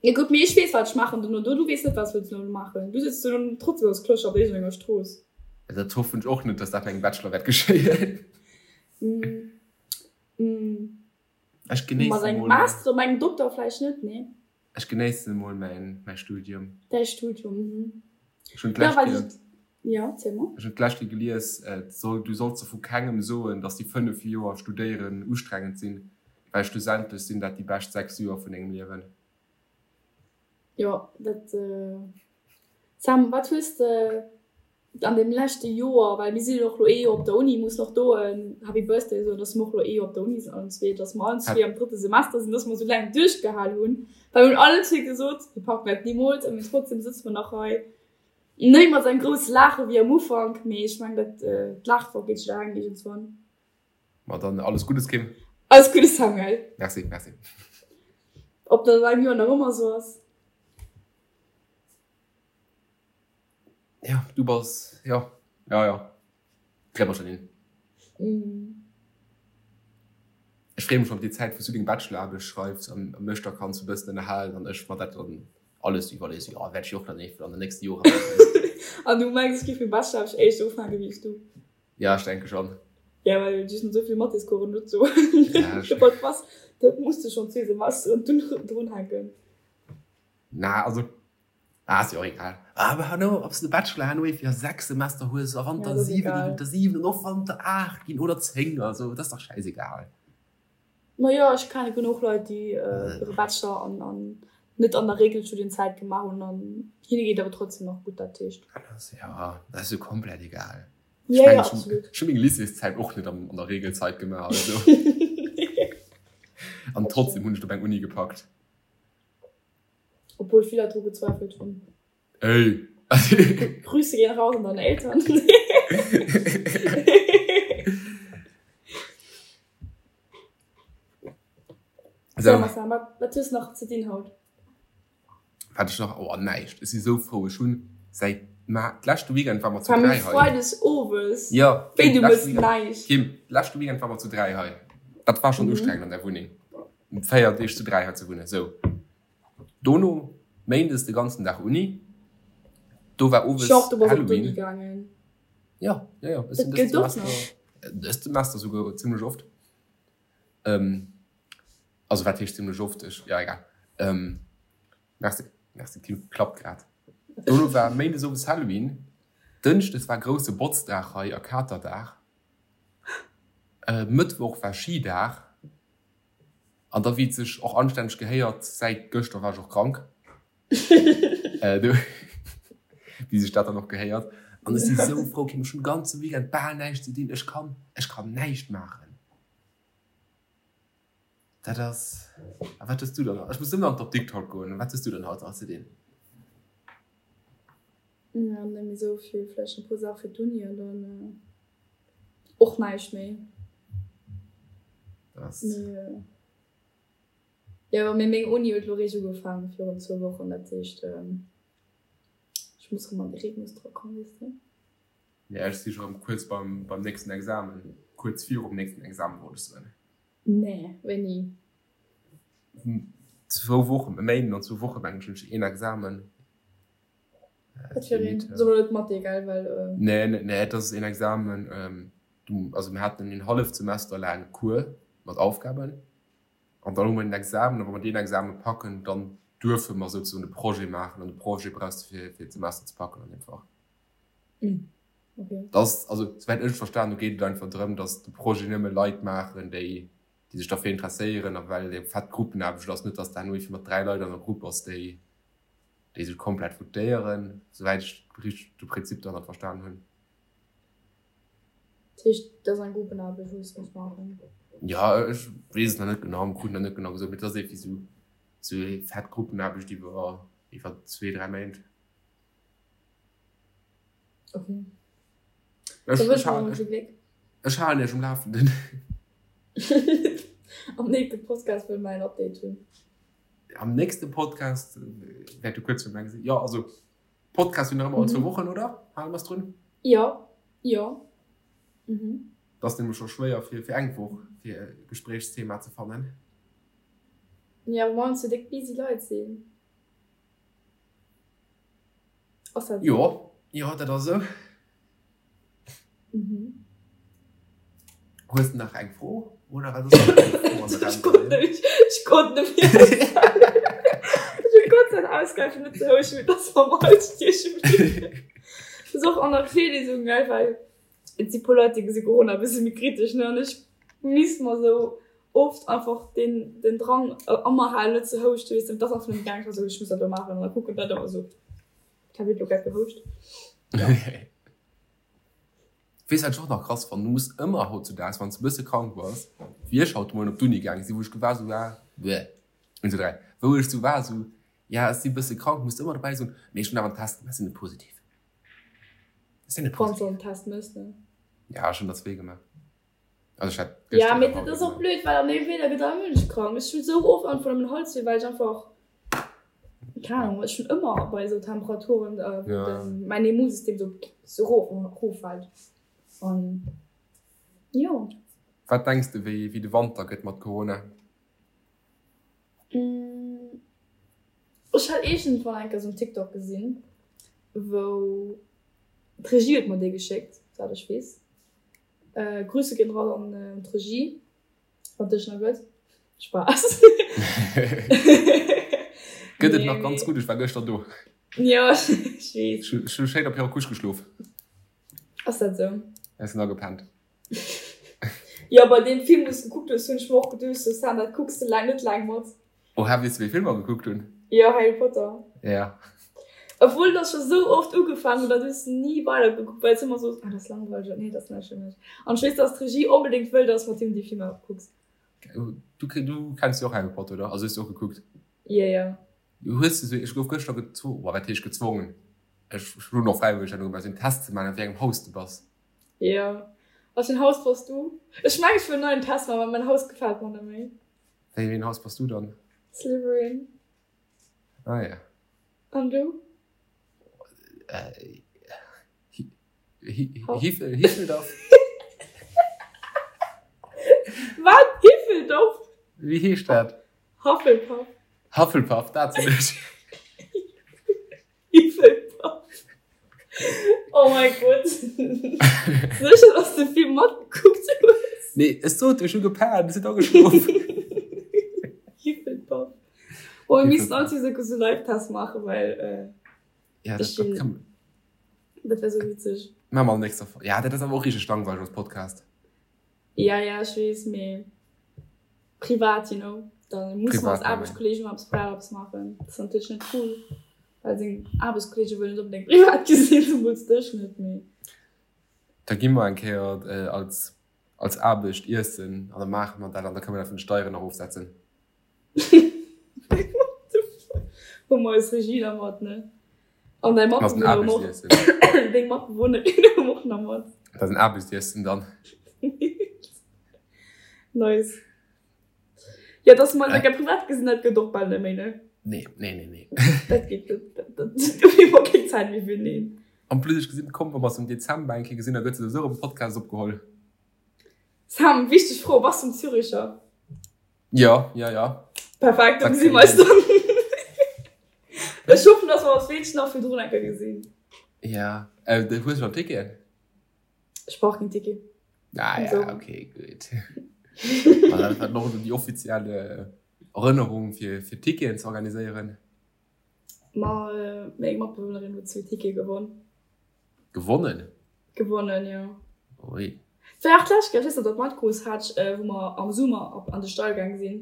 Jo gutt, mee ech weess, wat ech maachen dono. Du weess net, wat s wëlls dono maachen. Du sëtz dono trotzdem als Clochard op iergendenger Strooss. Dat hoffen ech och net, dass dat bei engem Bachelor wäert geschéien. Ech genéissen Mat engem Master oder mat engem Dokter vläicht net, nee. Ech genéissen emol mäin mäi Studium. Däi Studium, mhm. Ech hunn d'lescht Kéier. Ja, erziel mol. Ech hunn d'lescht Kéier gelies, et soll, du solls der vu kengem soen, dass déi 5 Joer studéieren ustrengend sinn, well schlussendlech sinn dat déi bescht 6 Joer vun dengem Liewen. Jo, dat. Sam, wat hues de an deem leschte Joer, well mir sinn jo och lo ee Joer op der Uni, mussen och do en Happy Birthday soen, dass mer och lo ee Joer op der Uni sinn allen zwee, dass mer allen zwee am drëtte Semester sinn, dass mer esou laang duerchgehal hunn, well mir hunn allen zwee gesot, mir packen dat nimools a mee trotzdem sëtze mer nach hei, net mat esou engem grousse Laache wéi am Ufank, mee ech mengen dat d'Laache vergeet jidderengem iergendswann. Ma dann alles Guddes Kim. Alles Guddes Samuel. Merci, merci. Ob dat an engem Joer nach ëmmer esou ass? Ja, du bass, jo, jo, jo, kréie mer schonn hin. Ech freeë mech schonn op déi Zäit, wou s du deng Bachelor-Aarbecht schreifs an mech da kanns e bëssen ënnerhalen an ech mer dat dann alles iwwerliesen. Jo, wäert ech jo och dann eventuell an den nächste Jore maachen. An du mengs, ech géif meng Bachelor-Aarbecht éischter ufänke wéi s du? Ja, ech denke schonn. Ja, well du sinn esou vill Mathéscoursen dozou. Was, dat muss de schonn zwee Semesteren drunhänken. Na, also. Ah, ass jo och egal. Awer herno, ob s de Bachelor herno fir 6 Semester hues a wann der 7 ginn, der 7 an och wann der 8 ginn oder 10, also dat ass dach schäisegal. Ma jo, ech kenne genuch Leit, déi hire Bachelor an an net an der Regelstudienzäit gemaach hunn an hinne geet awer trotzdem nach gutt, dat heescht. Jo, dat ass jo komplett egal. Ech mengen, ech hu meng Lycéeszäit och net an der Regelzeit gemaach, also. An trotzdem hunn ech et op eng Uni gepackt. Obwuel vill Leit dru gezweifelt hunn. Ey! Grüße gehen raus an deine Eltern. So, Marcel, wat, wat hues nach ze dinn haut? Wat ech nach, oh näischt. Ech si sou frou. Ech hunn säit ma d'leschte Weekend war mer zu 3 hei. Freides owes. Ja, Wéi du mëss näischt. Kim, d'leschte Weekend war mer zu 3 hei. Dat war schonn ustrengend an der Wunneng. 4 Deeg zu 3 hei ze wunnen. Sou. Dono Méindes de ganzen Dag Uni. Do war owes Genre, du bass op d'Uni gaangen? Ja, ja, ja. Ech sinn dëst Semester, dëst Semester souguer zimlech oft. Also wat heescht zimlech oft? Ech, ja egal. Merci, merci Kim, klappt grad. Dono war Méindes owes Halloween. Dënschdes war grousse Botzdag hei a Katerdag. Mëttwoch war Schidag. An da wéi et sech och anstänneg gehéiert, säit gëschter war ech och krank, wéi sech dat dann och gehéiert. An ech si sou frou, Kim, ech hunn de ganze Weekend bal näischt ze dinn, ech kann, ech kann näischt maachen. Dat ass, a wat hues du dann, ech muss nëmmen an d'Apdikt haut goen, wat hues du dann haut nach ze dinn? Jo, net méi sou vill, vläicht e puer Saache fir d'Uni an dann. Och näischt méi. Das. Mee, jo, mee meng Uni huet lo réischt ugefaangen virun zwou Wochen, dat heescht, ech muss rëm an de Rhythmus dra kommen, weess de. Ja, ech si scho rëm kuerz beim, beim nächsten Examen, kuerz virum nächsten Examen, wollt ech soen. Nee, wéini? Zwou Wochen, e Méinden an zwou Woche mengen ech hunn ech een Examen. Wat fir een? Soe mer net Mathé, gell, well. Nee, nee, et ass een Examen, du, also mir haten een halleft Semester laang Cours mat Aufgaben an dann hu mer een Examen a wa mer deen Examen packen, dann duerfe mer souzesoen de Projet maachen an de Projet brauchs de fir, fir d'Semester ze packen an deem Fach. Okay. Dat ass, also souwäit ech et verstan hu geet et einfach drëm, datt de Projet nëmme Leit maachen, déi, déi sech derfir interesséieren a well et eng fett Gruppenaarbecht ass, net datt de herno iergendwéi mat 3 Leit an der Grupp bass, déi, déi sech komplett votéieren, souwäit ech richteg de Prinzip derhannert verstan hunn. Dat heescht, dat ass eng Gruppenaarbecht, wou s de muss maachen? Jo, ech weess et nach net genau, mir kruten nach net genau gesot, mee et ass iergendwéi sou, sou eng fett Gruppenaarbecht iwwer, iwwer zwee, 3 Méint. Okay. Ech, Da ech wënsche mer halen, emol vill Gléck. ech halen iech um Lafenden. Am nächste Podcast wëlle mer en Update hunn. Am nächste Podcast wäert du kuerz virum Eng sinn. Jo, also Podcast sinn nach ëmmer all zwou Wochen, oder? Hale mer es drun? Jo, jo. Mhm. Dat ass nämlech scho schwéier fir, fir eng Woch fir e Gespréichsthema ze fannen. Jo, well mer ons jo déck busy Leit sinn. Ass dat esou? Jo, jo, dat ass esou. Mhm. Hues de nach eng Fro? Oder wat ass nach eng Fro an der Ech konnt net, ech konnt net méi aushalen. Ech hu Gott sei Dank ausgehalen, net ze houschen, mee dass mer am Hals stieche bliwwen. Dat ass och an der Virlesung, gell, well et si puer Leit, déi gesi Corona e bësse méi kritesch, ne, an ech misst mer esou oft einfach den, den Drang a mer halen, net ze houschten, weess de, dat ass einfach net méi gaangen. Ech war esou, ech muss dat elo maachen an da kucken d'Leit ëmmer esou, d'Hab huet elo grad gehouscht. Ja. Weess wat ech och nach krass fannen, du muss ëmmer hautzudaags wann s de bësse krank bass, wéi ech haut de Moien op d'Uni gaange sinn, wou ech war sou war, bleh, 1, 2, 3, wou ech sou war sou, ja ech si bësse krank, muss de ëmmer dobäi soen, mee ech hunn awer en Test gemaach, ech sinn net positiv, ech sinn net Wann s positiv. de en Test méchs, ne? Ja, ech hunn der zwee gemaach. Also ech hat Ja, gëschter mee an dat haut ass och gemaach. blöd, well an deem Wieder gëtt all Mënsch krank. Ech hunn esou oft einfach nëmmen Halswéi, well ech einfach, keng Ahnung, ech hunn ëmmer bei esou Temperaturen, wou Ja. den, mäin Immunsystem esou, esou rof, roffält. An jo. Wat denks de wéi, wéi de Wanter gëtt mat Corona? Ech hat iergendwann eng Kéier esou en TikTok gesinn, wou, d'Regie huet mer dee geschéckt, souwäit ech weess. Grüße gehen raus an d'Regie, wann dech nach gëtt. Spaß. Gëtt et nach ganz gutt, ech war gëschter do. Jo, ech weess. Ech hu schéin op hirer Couche geschlof. Ass dat sou? Ech sinn agepennt. Jo, bei deem Film, wou s gekuckt hues, hunn ech mer och geduecht, sou, Sam, dat kucks de laang net laang mat. Oha, weess de, wéi Film mer gekuckt hunn? Jo, Harry Potter. Ja. Obwuel dat scho sou oft ugefaangen huet, an du hues ni weidergekuckt, well s ëmmer soos, ah, dat ass langweileg, nee, dat ass näischt fir mech. An ech weess, dass d'Regie onbedéngt wëll, dass mat him déi Filmer kucks. Du, du kenns jo och Harry Potter, oder? Also hues du och gekuckt? Jo, jo. Hues de sou, ech gouf gëschter gezwongen, wat heescht gezwongen, ech hunn och fräiwëlleg dat ugemaach, sou en Test ze maachen, a wéi engem Haus de bass. Jo. A wéi en Haus bass du? Ech mengen, ech wëll en neien Test maachen, well mäin Haus gefält mer net méi. Wéi en Haus bass du dann? Slytherin. Ah ja. An du? Hiffeldoff. Wat? Hiffeldoff? Wéi heescht dat? Hufflepuff. Hufflepuff, dat sinn ech. Hufflepuff. Oh mein Gott. Sécher, dass du vill matgekuckt hues? Nee, ech sot, ech hu gepennt, ech sinn ageschlof. Hufflepuff. Oh, mir missten all zwee sou Live-Test maachen, well. Äh, ja, dat, dat, kann... dat wär sou witzeg. Maache mer an nächster Folg. Ja, dat ass awer och richteg langweileg als Podcast. Ja, ja, ech weess, mee privat, you know, da muss man als Aarbechtskolleegen mal eppes privat eppes maachen. Dat ass natierlech net cool, well seng Aarbechtskolleege wëllen net onbedéngt privat gesinn, zemools dech net, mee. Da gi mer eng Kéier als, als Aarbecht iessen an da maache mer dat an da kënne mer dat vun de Steieren erofsetzen. What the fuck? Hu mer eis Regie da mat, ne? An däi Matbewunner och. Deng Matbewunnerin hu och nach mat. Dat ass en Aarbechtsessen dann. Nice. Ja, dass mer eis eng Kéier privat gesinn, dat gëtt och bal net méi, ne? Nee, nee, nee, nee. Dat geet net. Dat, dat, do hu mer keng Zäit méi fir, nee. En plus, ech gesinn, komm, wa mer se am Dezember eng Kéier gesinn, da gëtt souwisou erëm e Podcast opgeholl. Sam, wichteg Fro, Bass du en Züricher? Ja, ja, ja. Perfekt, dann gesinn wir eis dann. Ech hoffen, dass wir eis wéinstens nach virdrun eng Kéier gesinn. Ja, äh, du hues schon Ticket? Ech brauch keen Ticket. Ah ja, okay, gutt. Dat war noch déi offizielle Erënnerung fir, fir Ticketen ze organiséieren. Ma äh, meng Matbewunnerin huet zwee Tickete gewonn. Gewonnen? Gewonnen, jo. Ui. War och d'lescht Kéier, ech weess net, ob dat matkrus hat, wou mer am Summer op an de Stall gaang sinn,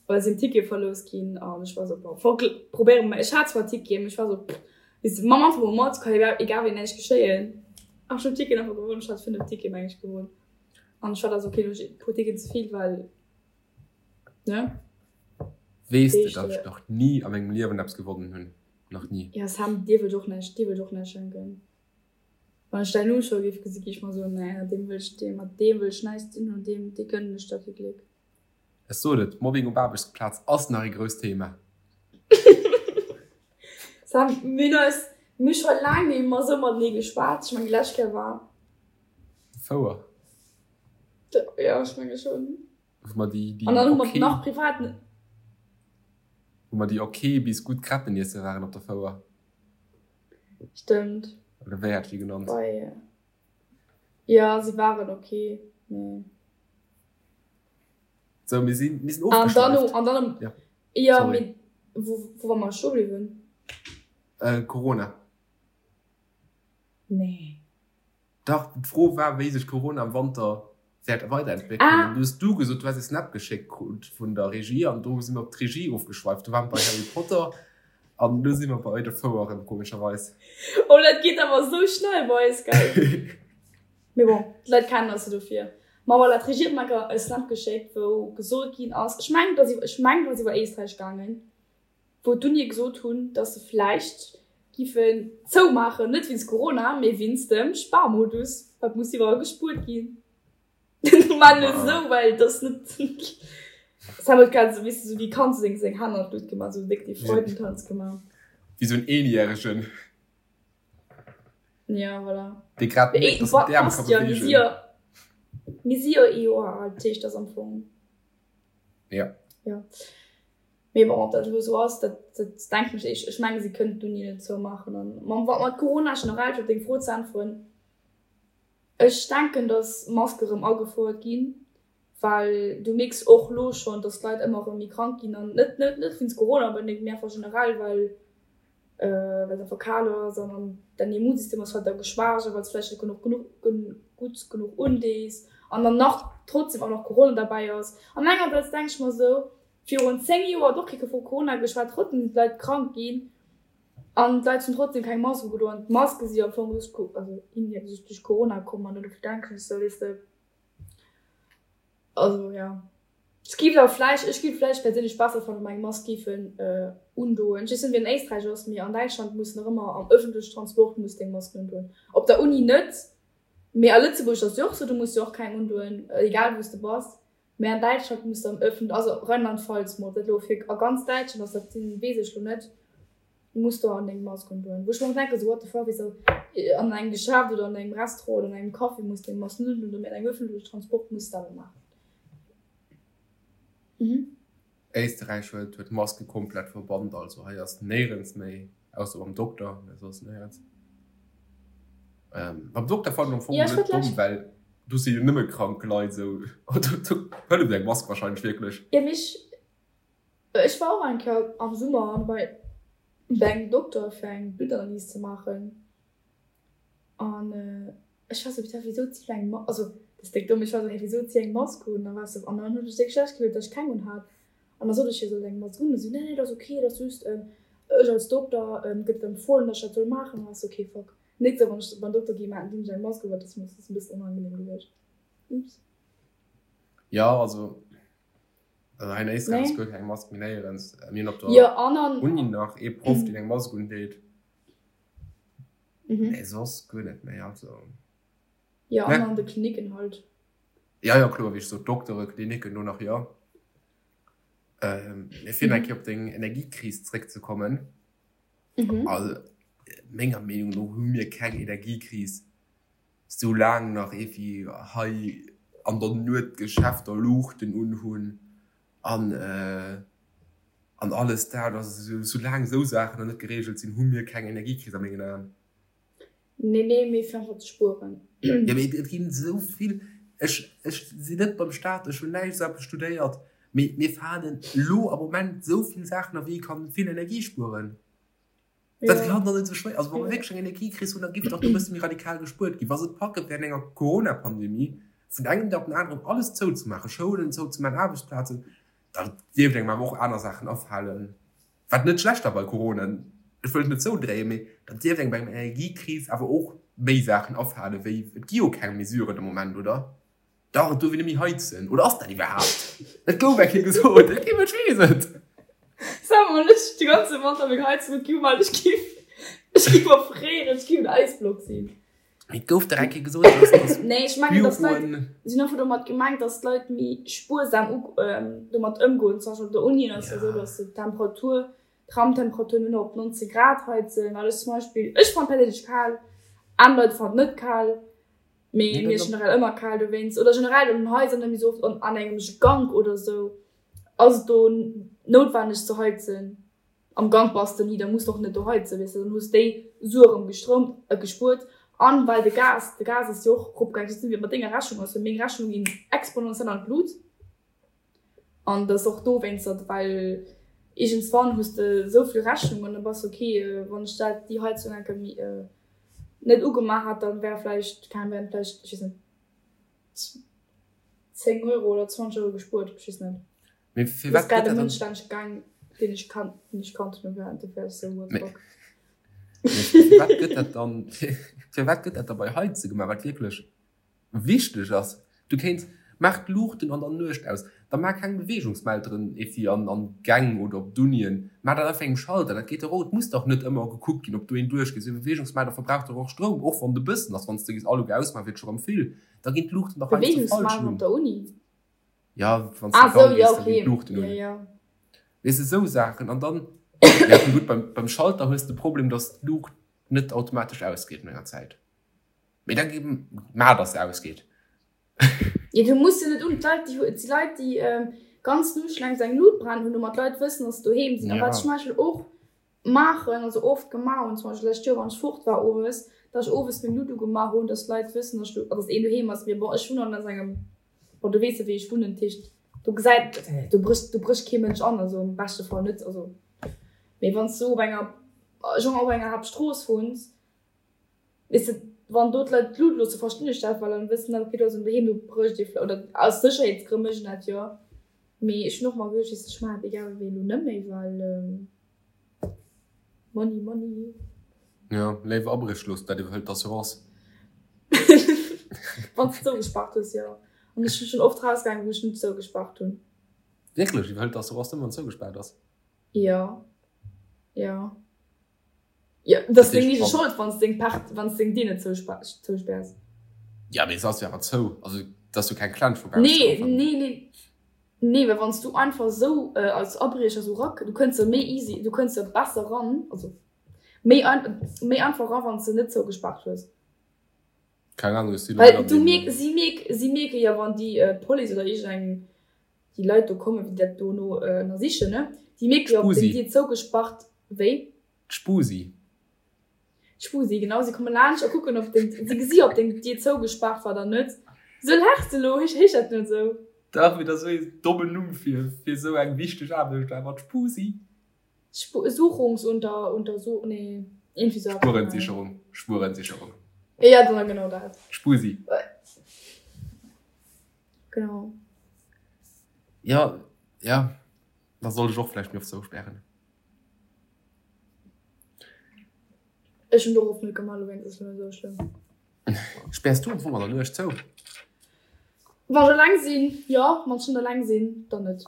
well sinn Tickete verlous ginn an ech war sou, bon, fuck, probéiere mer. Ech hat zwar Ticketen, mee ech war sou, pff, weess de, maach einfach mol mat, ka jo egal wéi näischt geschéien. An ech hunn d'Ticketen einfach gewonn, ech hat 5 Tickete meng ech gewonn an ech war da sou, okay, lo hu ech e puer Ticketen ze vill, well, ne? Weess de, datt ech nach ni a mengem Liewen eppes gewonnen hunn? Nach ni. Jo, Sam, dir wëllt och näischt, dir wëllt och näischt schenken. Wann ech däin Numm scho géif gesi géif ech mer soen, nee, deem wëll ech, deem, mat deem wëll ech näischt ze dinn hunn, deem, dee gënnen ech da kee Gléck. Ech sot et, Mobbing op Aarbechtsplaz ass nach ee grousst Thema. Sam, mir hunn eis, mir hu scho laang net méi esou matenee geschwat. Ech mengen, déi lescht Kéier war. Fouer. Jo, ech menge schonn. Wou mer déi, déi An dann hu mer nach privat. Wou mer déi ok bis gutt Crêpen iesse waren op der Fouer. Stëmmt. Oder wéi hat ech déi genannt? Bei, jo, se waren ok, mee. Sou, mir sinn, mir sinn An dann, ofgeschwäift. an dann, Ja, jo, sorry. mee wou, wou war mer stoe bliwwen? Äh, Corona. Nee. Dach, d'Fro war, wéi sech Corona am Wanter wäert weiderentwéckelen. Ah. An du hues du gesot, du häss e Snap geschéckt krut vun der Regie an do si mer op d'Regie ofgeschweift. Du waren bei Harry Potter an elo si mer bei de Foueren, komescherweis. Oh, dat geet awer esou schnell bei eis, gell? Mee bon, d'Leit kennen eis jo dofir. Ma voilà, d'Regie huet mer enker e Snap geschéckt, wou gesot ginn ass, ech mengen, et ass iwwer, ech mengen, et ass iwwer Éisträich gaangen, wou d'Unie gesot hunn, dass se vläicht giffen zoumaachen, net wéinst Corona, mee wéinst dem Sparmodus, wat muss iwwerall gespuert ginn. Mä net esou, well et ass net, Sam huet grad esou, weess de, esou wéi Kand seng seng Hänn an d'Luucht gemaach, esou déck dee Freudentanz gemaach. Wéi esou en Eenjäregen. Ja, voilà. Dee grad mierkt, dass en d'Äerm ka beweegen. Mir si jo ee Joer al, dat heescht, dat ass am Fong. Ja. Ja. Mee bon, ob dat elo esou ass, dat, dat denken ech. Ech, ech menge si kënnen d'Uni net zoumaachen. An mam, mat Corona generell, fir op deng Fro ze äntweren, ech denken, datt Maske rëm agefouert ginn, well du mierks och elo schonn, datt d'Leit ëmmer erëm méi krank ginn an net, net, net wéinst Corona onbedéngt, mee einfach generell, well. well et einfach kal ass an an däin Immunsystem ass halt da geschwächt a well s vläicht net genuch genuch gutt genuch undees an dann nach trotzdem och nach Corona derbäi ass. An engersäits denk ech mer esou, virun 10 Joer huet och kee vu Corona geschwat, trotzdem sinn d'Leit krank ginn an d'Leit hunn trotzdem keng Mask ugedoen an d'Maske si am Fong duerch also indirekt duerch Corona komm an dofir denken ech esou, weess de, Also jo. Ech giff awer vläicht, ech giff vläicht perséinlech besser fannen, wa mer eng Mask giffen undoen. Ech weess net wéi an Éisträich ass, mee an Däitschland muss nach ëmmer am ëffentlechen Transport muss de eng Mask undoen. Op der Uni net, mee a Lëtzebuerg ass jo och sou, do muss de och keng undoen, egal wou s de bass. Mee an Däitschland muss de am ëffent, also Rheinland-Pfalz mol, ob dat elo fir a ganz Däitschland ass, dat weess ech lo net. Muss do an deng Mask undoen. Wou ech mer och denken, sou what the fuck, wéi sou an engem Geschäft oder an engem Restaurant oder an engem Café muss deng Mask net undoen, mee an engem ëffentlechen Transport muss de awer maachen. Mhm. Éisterräich huet huet d'Maske komplett verbannt, also hei ass néierens méi, ausser beim Dokter, mä soss néierens. Ähm, beim Dokter fannen ech am Fong Ja, ech net wollt domm, lech. well do si jo nëmme krank Leit, sou do hëlleft eng Mask wahrscheinlech wierklech. Ja, mee ech Ech war och eng Kéier am Summer bei engem Dokter fir eng Bluttanalys ze maachen an ech war sou, putain wisou zitt eng Mask, also dat ass déck domm, ech war sou, hey wisou zitt eng Mask un? An da war ech sou, an dann hunn ech déck schlecht gefillt, datt ech keng un hat an da sot ech hir, sollt eng Mask un? An si sou, nee nee dat ass ok, dat ass just ech als Dokter gëtt et empfohlen, datt ech dat soll maachen. An da war ech sou, ok fuck, nächst Kéier wann ech beim Dokter ginn, dinn ech eng Mask un, well dat ass mir e bëssen onangenehm gewiescht, oops. Jo also Also hei in Éisträich ass Nee. guer keng Mask méi néierens. Mir hunn op der Jo, an an. Uni nach ee Proff, deen eng Mask undeet. Mhm. Mee soss guer net méi. Also. Jo, an Ne. an de Klinicken halt. Ja, ja, kloer, wéi ech sot, Doktere, Klinicken, do nach jo. Ähm, mee fir nach eng Kéier op deng Energiekris zréckzekommen. Mhm. Also, menger Meenung no hu mir keng Energiekris. Soulaang nach evi hei an der Nuet d'Geschäfter Luuchten unhunn an an alles dat, also soulaang esou Saachen nach net gereegelt sinn, hu mir keng Energiekris a mengen Aen. Nee, nee, mee fir einfach ze spueren. Jo, mee et ginn esou vill, ech ech sinn net beim Staat, ech hunn näischt esou eppes studéiert, mee mir falen elo am Moment esou vill Saachen a wéi ee kann vill Energie spueren. Dat kann doch net esou schwéier, also wa mer wierklech eng Energiekris hunn, da giff dach do e bësse méi radikal gespuert ginn. Wa se et packe während enger Corona-Pandemie vun engem Dag op den aneren alles zouzemaachen, Schoulen zouzemaachen, Aarbechtsplazen, da dierft engem awer och aner Saachen afalen, wat net schlecht war bei Corona, ech wëll et net zoudréien, mee da dierft engem bei enger Energiekris awer och méi Saachen afalen, wéi, et gi jo keng Mesuren de Moment, oder? Dach, et duerf een net méi heizen. Oder ass dat iwwerhaapt? Et gouf eng Kéier gesot, et kee Mënsch weess et. Sag mol, ech de ganze Wanter meng Heizung huet gi, well ech giff, ech giff erfréieren, ech giff en Äisblock sinn. Mee et gouf dach eng Kéier gesot, dass, dass Nee, ech mengen, dass d'Leit, Büroen. si hunn einfach domat gemengt, dass d'Leit méi spuersam u, domat ëmgoen. Zum Beispill op der Uni ass jo esou, dass se d'Temperatur, d'Raumtemperatur nëmmen op 19 Grad heizen, well ech zum Beispill, ech fannen perséinlech kal, aner Leit fannen et net kal. Mee mir ass generell ëmmer kal dowéinst. Oder generell an den Haiser net méi sou oft an engem Gank oder sou ass et do noutwenneg ze heizen. Am Gank bass de ni, da muss de och net do heizen, weess de. Dann hues déi Sue erëm gestroumt, gespuert. An well de Gas, de Gas ass jo och eropgaangen. Ech weess net wéi et mat denger Rechnung ass, mee meng Rechnung ginn exponentiell an d'Lut. An dat ass och dowéinster, well iergendswann hues de esou vill Rechnungen, da bass de ok, wann ech dat, déi Heizung enke méi net ugemaach hätt, dann wär vläicht, keng Ahnung, wären vläicht, ech weess net, 10 Euro oder 20 Euro gespuert, ech weess net. Mee Dat ass firwat grad gëtt e dat dann. Mënsch laanscht gaang, deen ech kannt, deen ech kannt hunn, an dofir war ech esou, what the Mee fuck. mee firwat gëtt dat dann, firwat gëtt dat da bei Heize gemaach, wat wierklech Wichteg ass, du kéints, maach d'Luuchten an der Nuecht aus, da maach keng Beweegungsmelderen evi an an d'Gäng oder op d'Unien, maach dat einfach engem Schalter, dat geet dach och. Et muss dach net ëmmer gekuckt ginn, ob do een duerchgeet. Esou e Beweegungsmelder verbraucht dach och Stroum, och wann et e bëssen ass. Wann s de gees all uge ausmaachen, wier et scho rëm vill, da ginn d'Luuchten dach heiansdo falsch Beweegungsmelder un. op der Uni? Ja, wann s de Ah an d'Gang sou, jo gees, da ginn okay, d'Luuchten jo un. jo. Weess de, esou Saachen. An dann, ja gutt, beim beim Schalter hues de de Problem, dass d'Luucht net automatesch ausgeet no enger Zäit. Mee da maach dass se ausgeet. Jo du muss se net un, d'Leit déi et si Leit déi ganz Nuecht laang sou eng Lut brennen hunn, domat d'Leit wëssen dass se doheem sinn. A wat ech zum Beispill och maachen, also oft gemaach hunn, zum Beispill d'lescht Joer wann ech fort war owes, dass ech owes meng Lut ugemaach hunn, dass d'Leit wëssen dass ech do, dass een doheem ass. Mee bon ech wunnen an engem, bon du weess jo wéi ech wunnen, dat heescht do gesäit, do brécht do brécht kee Mënsch an, also am beschte Fall net, also mee wann s du op enger. Genre op enger Haaptstrooss wunns, weess de, wann do d'Leit d'Lut loosse, verstinn ech dat, well dann wëssen se, okay, do ass en doheem, do brécht ee vläicht, oder aus Sécherheetsgrënn mécht een dat jo. Mee ech hunn och mer geduecht, weess de, ech maachen dat egal wéi elo net méi, well Money, money. Jo, léiwer Abréch loossen, dat iwwerhëlt d'Assurance. Wann s de zougespaart hues, jo. An ech sinn schonn oft rausgaangen, wou ech net zougespaart hunn. Wierklech? Iwwerhëlt d'Assurance nëmmen, wann zougespaart ass? Jo, jo. Jo, dat ass deng eege Schold, wann s deng Part, wann s deng Dier net zouspäers. Jo, mee se ass jo awer zou. Also, et ass jo keng Klensch vu baussen. Nee, nee, nee. Nee, well wann s du einfach esou als Abriecher esou rak, du kënns jo méi easy, du kënns jo besser ran, also méi ein, méi einfach ran, wann s de net zougespaart hues. Keng Ahnung, ech sinn elo net an deem. Well du mierk, si mierk, si mierke jo, wann déi Police oder iergendeng, déi Leit do kommen, déi dat dono ënnersichen, ne, déi mierke jo, ob deng Dier zougespaart, wéi? D'Spusi. D'Spusi, genau. Si komme laanscht a kucken, ob deng, si gesi, ob deng Dier zougespaart war oder net. Sou laachs de elo? Heescht dat net esou? Dach, mee dat ass esou ee dommen Numm fir, fir esou eng wichteg Aarbecht, awer d'Spusi. Spu, Suchungsunter, Untersu, nee, iergendwéi esou eppes. Spurensicherung, Spurensicherung. Ja, dann genau dat. D'Spusi. Genau. Ja, ja, da sollt ech och vläicht méi oft zouspären. Ech hunn dorop net gemaach, dowéinst ass et net esou schlëmm. Späers du am Fong an der Nuecht zou? Wann ech eleng sinn, jo. Wann ech net eleng sinn, dann net.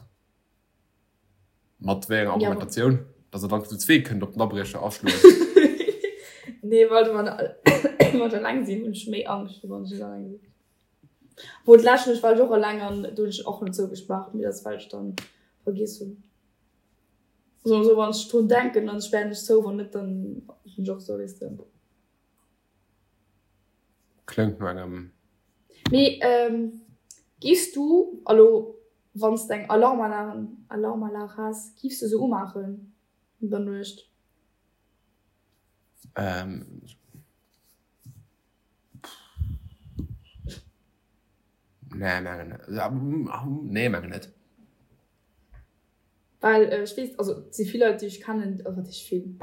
Mat wéi enger Argumentatioun? Dass der dann zu zwee kënnt op den Abriecher aschloen? Nee, well wann ech eleng sinn, hunn ech méi Angscht, wéi wann ech net eleng sinn. Obwuel d'lescht Nuecht war ech och eleng an do hunn ech och net zougespaart, mee dat ass well ech dann vergiess hunn. Soen esou, wann ech drun denken, dann spären ech zou, wann net, dann sinn ech och esou, weess de. Kléngt no engem. Mee giffs du elo, wann s de eng Alarmanlag, Alarmanlag häss, giffs du se umaachen an der Nuecht? Nee, mengen net. Nee, mengen net. Well ech weess, also et si vill Leit, déi ech kennen, also wat heescht vill,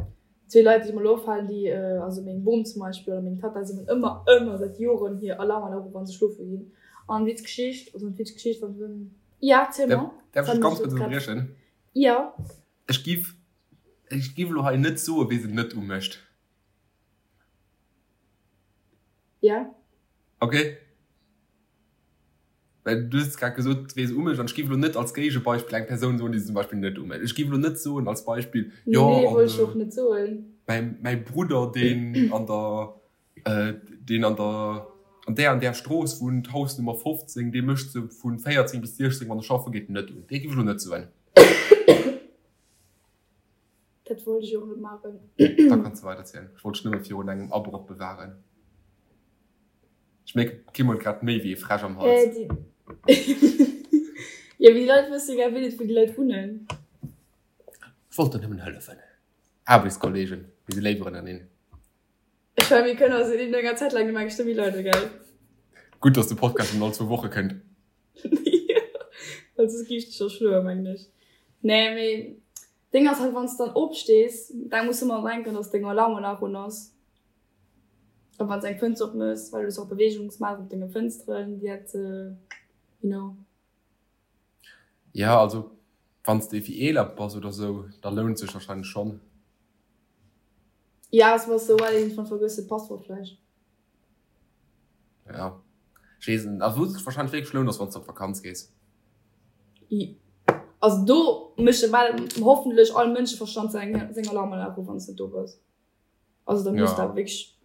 zwee Leit, déi mer elo afalen, déi, also meng Bom zum Beispill oder meng Tatta, si hunn ëmmer, ëmmer säit Joren hir Alarmanlag u wa se schlofe ginn. An witz Geschicht, also net witz Geschicht, wann se, ja, erziel mer. Däerf ech dech ganz kuerz ënnerbriechen? Jo. Ech giff, ech giff elo hei net soen, wee se net umécht. Ja. Okay. Well du hues grad gesot, wee se umécht, an ech géif elo net als Géigebeispill eng Persoun soen, déi se zum Beispill net umécht. Ech géif elo net soen als Beispill, jo, Nee, wollt ech och net soen. mäi, mäi Brudder, deen an der, deen an der, an där an där Strooss wunnt, Hausnummer 15, dee mécht se vu 14 bis 16, wann e schaffe geet, net un. Dee géif ech elo net soen. Dat wollt ech och net maachen. Da kanns de weiderzielen. Ech wollt dech nëmme virun engem Abroch bewahren. Ech mierken, d'Kim huet grad méi wéi ee Fräsch am Hals. Äh, jo, mee déi Leit wësse jo gär net, wou déi Leit wunnen. Ech wollt der nëmmen hëllefen. Aarbechtskolleegen, mir si léiwer ënnereen. Ech mengen, mir kënnen eis no enger Zäit laang gemengt scho méi leiden, gell? Gutt, dass de Podcast nëmmen all zwou Woche kënnt. Jo, well soss géif ech dech erschloen, mengen ech. Nee, mee Deng ass halt wanns dann opstees, da muss ëmmer denken dass deng Alarmanlag un ass a wanns eng Fënster op mëss, well du hues och Beweegungsmelder op denge Fënsteren, déi dat you know. Ja also wanns de wéi eeler bass oder sou, da lount sech wahrscheinlech schonn. Ja ass bass sou well iergendwann vergëss de d'Passwort vläicht. Ja ech weess net, also wou sech wahrscheinlech wierklech lount ass wanns de op Vakanz gees. Also do mécht ewell hoffentlech all Mënscheverstand seng seng Alarmanlag u wann s de do bass. Also da muss dat wierklech,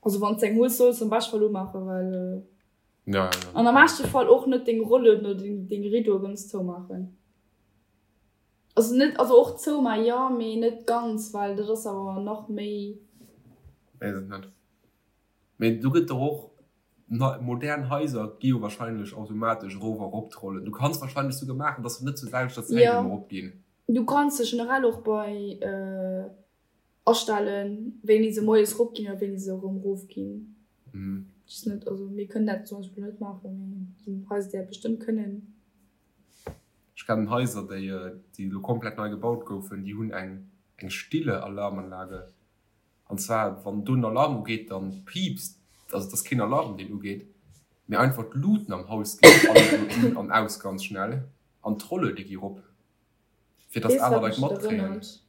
also wann s de eng hues solls de am beschte Fall umaachen, well ja, ja, ja. An am beschte Fall och net deng Rollen oder deng deng Rideaue ganz zoumaachen. Also net, also och zoumaachen jo, mee net ganz, well dat ass awer nach méi. Weess et net. Mee do gëtt der och Modern Haiser gi jo wahrscheinlech automatesch erof a rop trollen. Du kanns wahrscheinlech souguer maachen, dass se net zur selwechter Zäit ëmmer erop ginn. Du kanns se generell och bei astellen, wéini se moies rop ginn oder wéini se erëm erof ginn. Just net, also mir kënnen dat zum Beispill net maachen, mee et ginn Haiser, déi dat bestëmmt kënnen. Ech kennen Haiser, déi elo komplett nei gebaut goufen, déi hunn eng stille Alarmanlage. An zwar wann do en Alarm ugeet, dann piipst, also et ass keen Alarm deen ugeet, mee einfach d'Luuten am Haus ginn alleguer un an aus ganz schnell an d'Rolluede gi rop, fir dass Weess aner wat Leit mech et matkréien. erënnert?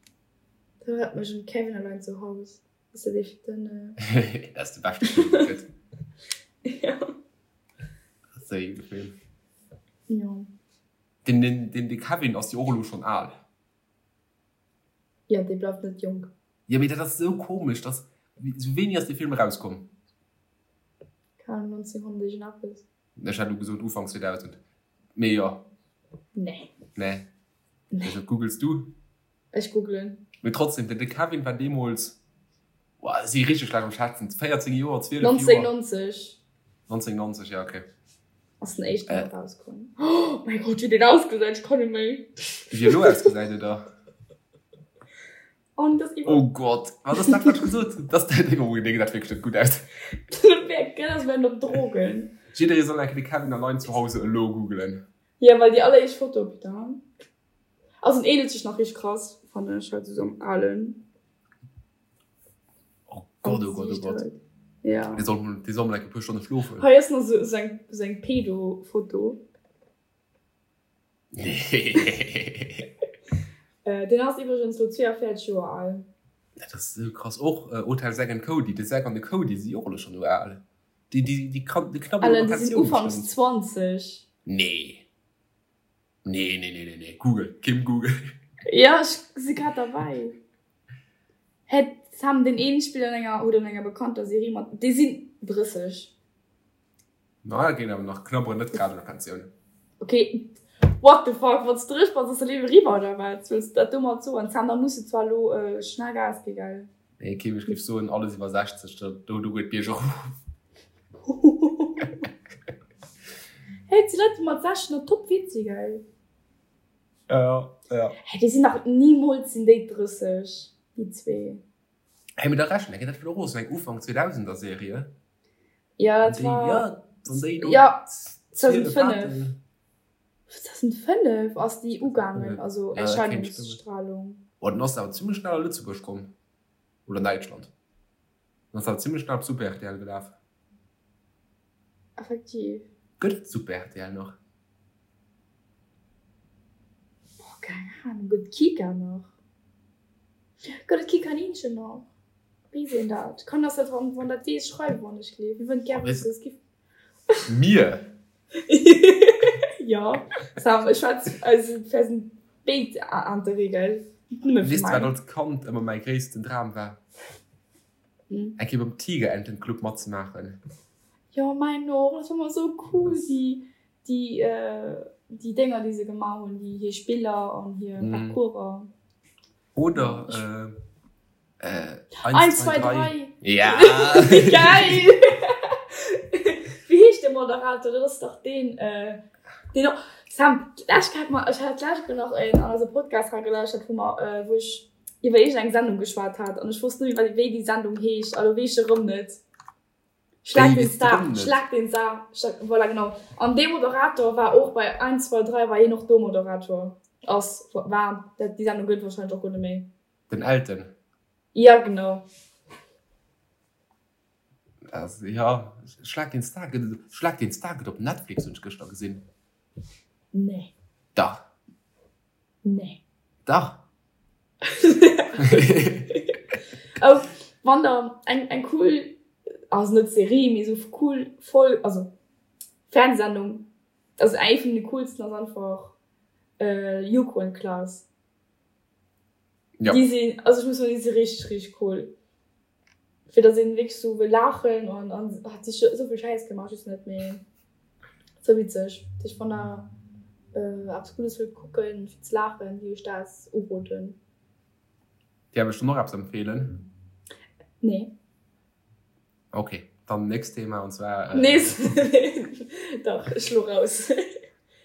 Dat erënnert mech un Kevin allein zu Haus. Ass dat ee den. Dat ass de beschte Film deen et gëtt. Ja. Dat ass e gudde Film. Jo. Den, den, den, de Kevin ass jo och elo schonn al. Jo, dee bleift net jonk. Jo, mee dat ass esou komesch, dass, wéini ass dee Film erauskomm? Keng Ahnung, 1900 iergendeppes. Ech hätt elo gesot Ufank 2000, mee jo. Nee. Nee. Nee. Dat googles du. Ech googlen. Mee trotzdem, den Kevin war deemools, boah, ech si richteg schlecht am Schätzen, 14 Joer, 12 Joer. 1990. 1990, ja, okay. Ass den éischten äh. erauskomm. Oh mäi Gott, wéi deen ausgesäit, ech kann net méi. Wéi elo ausgesäit, oder? Oh, das iwwer. Oh Gott, wat ass dat, wat ech gesot hunn? Das, oh, dee gesäit wierklech net gutt aus. Dat wär op Drogen. Jidderee soll eng Kéier de Kevin allein zu Hause elo googelen. Ja, well déi alleréischt Foto, putain. Also en ähnelt sech nach richteg krass, fannen ech, halt esou am alen. Oh Gott, oh Gott, oh Gott. Ja. Dee soll, dee soll mol eng e puer Stonne schlofen. Hei ass nach esou, esou eng, esou eng Pedo-Foto. Nee. Deen ass iwwregens lo 42 Joer al. Dat ass esou krass. Och Hotel Zack and Cody, de Zack an de Cody si jo och elo schonn esou al. Déi, déi, déi knabbelen op der Pensioun Déi sinn ufanks 20. Nee. Nee, nee, nee, nee, nee. Google, Kim, Google. Ja, ech si grad derbäi. Hä, Sam, deen een spillt an enger, huet an enger bekannter Serie mat, déi sinn 30. Na, dat geet awer nach, knabberen net grad un der Pensioun. Ok, what the fuck, wann s de 30 bass, ass de Liewe riwwer, oder wat wëlls de dat domat soen? Sam, da muss de zwar elo schnell Gas gi, gell? Nee, Kim, ech géif soen, alles iwwer 60, do, do geet d'Bierg erof. Hey, et si Leit, déi mat 60 nach top fit si, gell? Ja, ja. Hey, déi sinn nach, nimools sinn déi 30, déi zwee. Hey, mee da rechnen, dat war och esou eng Ufank 2000er Serie. Ja, dat war. Ja, wann déi do. Ja, 2005. 2005 ass déi ugaangen, also Erscheinungsstrahlung. Oh, dann ass se awer zimmlech schnell a Lëtzebuerg komm. Oder an Däitschland. Dann ass se awer zimmlech schnell op Super rtl gelaf. Effektiv. Gëtt et Super rtl nach? Boah, keng Ahnung. Gëtt et Kika nach? Gëtt et Kikaninchen nach? Weess een dat? Kann ass dat, wann dat weess, schreiw wann ech gleef. Mir wëllen et gär wëssen. Es gi. Mir? Jo, Sam, ech schwätz also fir eisen béid Intérêt, gell? Net nëmme fir Weess de, wat mäin. als Kand ëmmer mäi gréissten Dram war? Hm? Eng Kéier beim Tigerentenclub matzemaachen. Jo, mäin och. Dat war ëmmer esou cool, déi, déi, déi Dénger, déi se gemaach hunn, déi hir Spiller an hir Parcourser. Oder äh, 1, 2, 3. Ja! Geil! Wéi heescht de Moderator? Dat ass dach deen, äh, deen och. Sam, d'lescht Kéier hat mer, ech hat d'lescht Kéier nach een an eise Podcast ragelauschtert, wou mer, äh, wou ech iwwer iergendeng Sendung geschwat hat an ech wosst net méi, wéi déi Sendung heescht. A lo weess ech erëm net. Schlag den Star, Schlag den Star, voilà genau. An dee Moderator war och bei 1, 2, 3 war hien och do Moderator. Ass, war, dat, déi Sendung gëtt wahrscheinlech och guer net méi. Den Elton? Ja, genau. Also, ja, Schlag den Star gëtt et, Schlag den Star gëtt op Netflix, hunn ech gëschter gesinn. Nee. Dach. Nee. Dach. Oh, wann der eng, eng cool, also net Serie, mee sou cool Folg, also Fernsehsendung, also eng vun de coolsten ass einfach äh, Joko und Klaas. Ja. Déi sinn, also ech muss soen, déi si richteg, richteg cool. Fir dass een wierklech sou wëll laachen an an hat sich sou vill Schäiss gemaach, just net méi sou witzeg. Ech wann der äh, eppes Guddes wëllt kucken fir ze laachen, géif ech dat uroden. Däerf ech der noch eppes empfehlen? Nee. Ok, dann nächst Thema und zwar. Äh, Nees. Dach, ech lo raus.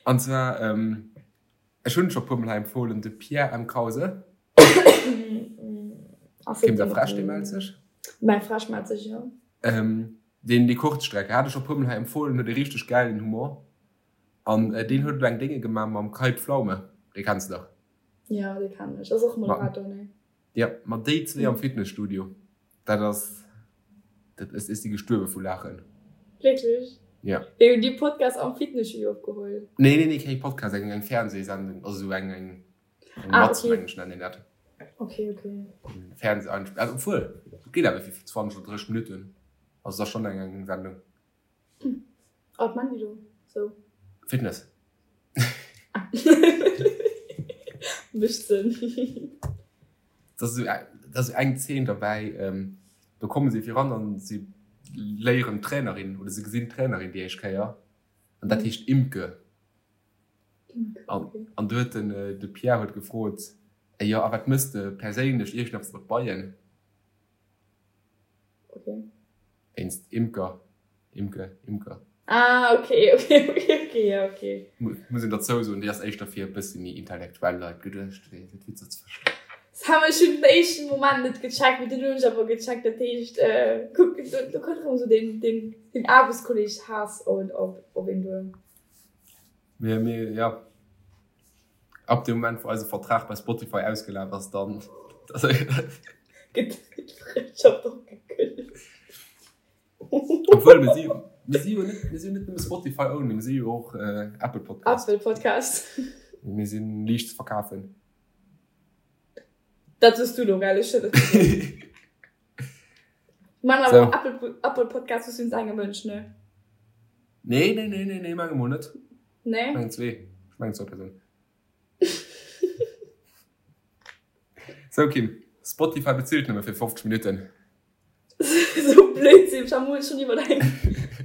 An zwar, ähm, ech hunn scho puer mol hei empfohlen, de Pierre M. Krause. Kim der Fräsch, dee mellt sech. Mäi Fräsch mellt sech, jo. Ähm, deen déi Kurzstrecke hat ech scho puer mol hei empfohlen, huet e richteg gäilen Humor. An äh, deen huet elo eng Dénge gemaach mam Kai Pflaume, dee kenns de dach. Jo, dee kennen ech. Ass och Moderator, ne? Jo, mat déi zwee am Fitnesstudio. Dat ass, dat ech si gestuerwe vu Laachen. Wierklech? Ja. Wéi hunn déi Podcast am Fitnesstudio opgeholl? Nee, nee, nee, keng Podcast, eng, eng Fernsehsendung, also sou eng, eng, eng ah, Matz, okay. mengen ech, nennen een dat. Okay, okay. Fernseh, also obwuel, et geet awer fir 20 oder 30 Minutten, also et ass schonn eng, eng Sendung. A wat man déi do sou? Fitness. Mécht Sënn. Dat ass esou eng Zeen derbäi, do komme si viran an si léieren d'Trainerin oder se gesinn d'Trainerin déi éischt Kéier an dat heescht Imke. An do huet den de Pierre huet gefrot, jo a wat mëss de perséinlech iergendeppes mat Beien? Wéinst Imker, Imke, Imker. Ah, okay, okay, okay, okay, ja, okay. Muss een derzou soen, déi ass éischter fir e bëssi méi intellektuell Leit geduecht, fir fir d'Witzer ze verstoen. Das haben ech schon den éischten Moment net gecheckt, mee dunn hunn ech awer gecheckt, dat heescht, äh, kuck, do, do kënnt erëm esou den, den, den Aarbechtskolleg Haass op, op, op een duer. Mir, mir, ja. Ab dem Moment wou eise Vertrag bei Spotify ausgelaf ass, dann. Gëtt d'Frëndschaft och gekënnegt. Obwuel, mir si, mir si jo net, mir si jo net nëmme Spotify only, mir si jo och Apple Podcast. Apple Podcast. Mir si liicht ze verkafen. Dat soos du lo, gell? Ech hunn dat net gesot. Man awer so. Apple, Apple Podcast ass just engem Mënsch, ne? Nee, nee, nee, nee, nee, menge mol net. Nee? Ech mengen zwee. Ech mengen zwou Persounen. So Kim, Spotify bezilt nëmme fir 50 Minutten. So Blödsinn, ech hu schon iwwer eng,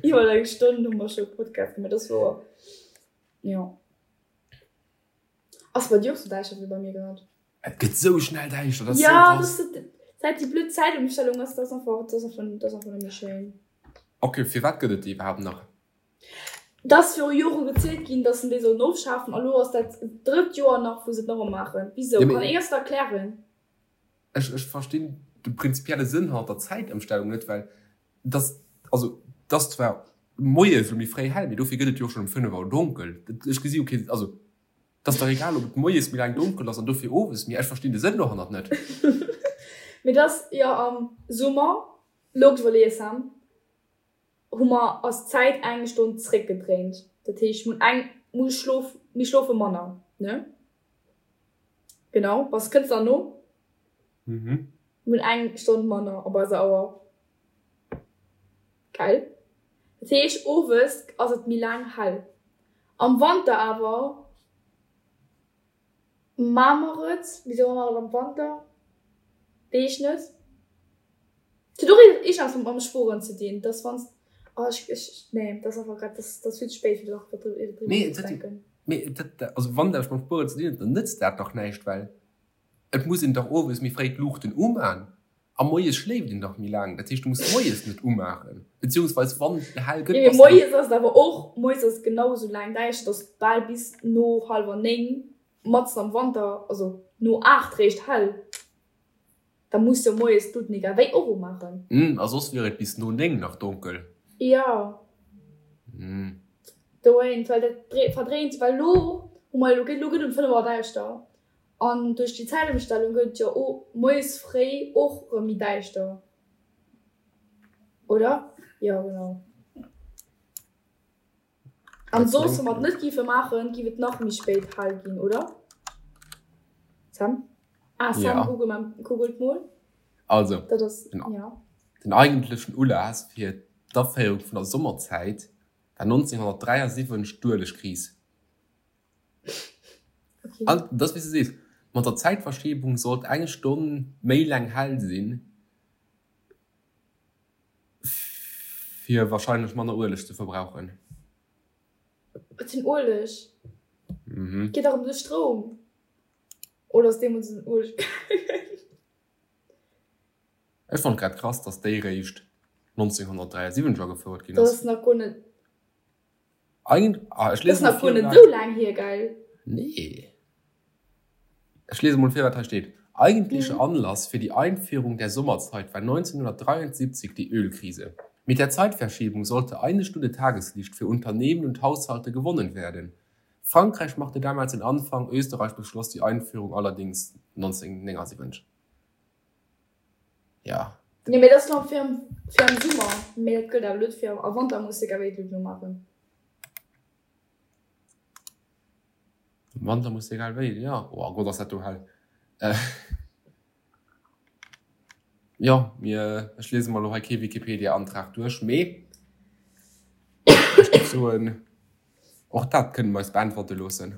iwwer eng Stonn hu mer scho Podcast gemaach, dat wor, jo. Ass bei dir och sou däischter wéi bei mir grad? Et gëtt sou schnell däischter, dat ass sou krass. Ja, dat säit déi blöd Zäitëmstellung ass, dat ass einfach, dat ass einfach, dat ass einfach net méi schéin. Ok, firwat gëtt et déi iwwerhaapt nach? Dat ass viru Jore gezielt ginn, datt se déi sollen ofschafen a lo ass dat drëtt Joer nach, wou se et nach ëmmer maachen. Wisou? Kann een eis dat erklären? Ech, ech verstinn de prinzipielle Sënn hannert der Zäitëmstellung net, well et ass, also et ass zwar moies elo méi fréi hell, mee dofir gëtt et jo och schonn um 5 Auer donkel. Ech gesi jo kee, also Et ass dach egal, ob et moies méi laang donkel ass an dofir owes méi. Ech verstinn de Sënn dohannert net. Mee et ass jo am Summer, lo iwwerleeë Sam, hu mer ass d'Zäit eng Stonn zréckgedréint. Dat heescht, mir hunn eng, mir schlof, mir schlofe manner, ne? Genau, bass, kënns nach no? Mhm. Mir hunn eng Stonn manner op eiser Auer. Gell? Dat heescht, owes ass et méi laang hell. Am Wanter awer maa mer et, wisou maa mer et am Wanter? Weess ech net. Et huet och iergendeppes mam Spueren ze dinn, dass wann s, oh ech, ech, nee, dat ass einfach grad, dat ass vill ze spéit fir nach driwwer nozedenken. Mee dat, also wann dat mam Spueren ze dinn huet, dann nëtzt dat dach näischt, well Et muss een dach owes méi fréi d'Luuchten umaan a moies schléift een dach méi laang. Dat heescht, du muss moies net umaachen, beziehungsweis wann et hell gëtt, bass de. Moies ass et awer och, moies ass et genau esou laang däischter, et ass bal bis no hallwer 9, matzen am Wanter, also no 8 réischt hell. Da muss jo moies d'Luuten egal wéi och umaachen. A soss wier et bis no 9 nach donkel. Jo. Dowéint, well dat verdréint, well elo hu mer, elo gëtt um 5 Auer däischter. An duerch déi Zäitëmstellung gëtt et jo moies fréi och rëm méi däischter, oder? Jo, genau. An soss, wa mer et net géife maachen, géif et nach méi spéit hell ginn, oder? Sam? Ah, Sam, google mal, googelt mol. Also, dat ass, den, ja. Den eigentlechen Ulass fir d'Aféierung vun der Sommerzäit war 1973 d'Uelegkris. Okay. An dat ass wéi s de sees, mat der Zäitverschiebung sollt eng Stonn méi laang hell sinn, fir wahrscheinlech manner Ueleg ze verbrauchen. Wat fir en Ueleg? Mhm. Geet dach ëm de Stroum. Oder ass deemools en Ueleg gaangen? Ech fonnt grad krass, dass déi réischt 1973 agefouert ginn Dat ass. ass nach guer net. Eigent, ah, ech Das lese mol nach guer vir, net wat. esou laang hier, gell? Nee. Ech lese mol vir, wat hei steet. Eigentlicher Mhm. Anlass für die Einführung der Sommerzeit war 1973 die Ölkrise. Mit der Zeitverschiebung sollte eine Stunde Tageslicht für Unternehmen und Haushalte gewonnen werden. Frankreich machte damals den Anfang, Österreich beschloss die Einführung allerdings 1979. Ja. Nee, mee dat ass fir am, fir am Summer. Mee dat gëllt awer net fir am Wanter muss de egal wéi et elo maachen. Am Wanter muss de egal wéi, jo. Oh Gott, ass dat do hell. Jo, mir, ech liese mer elo hei kee Wikipedia-Antrag duerch, mee ech géif soen, och dat kënne mer eis beäntwerte loossen.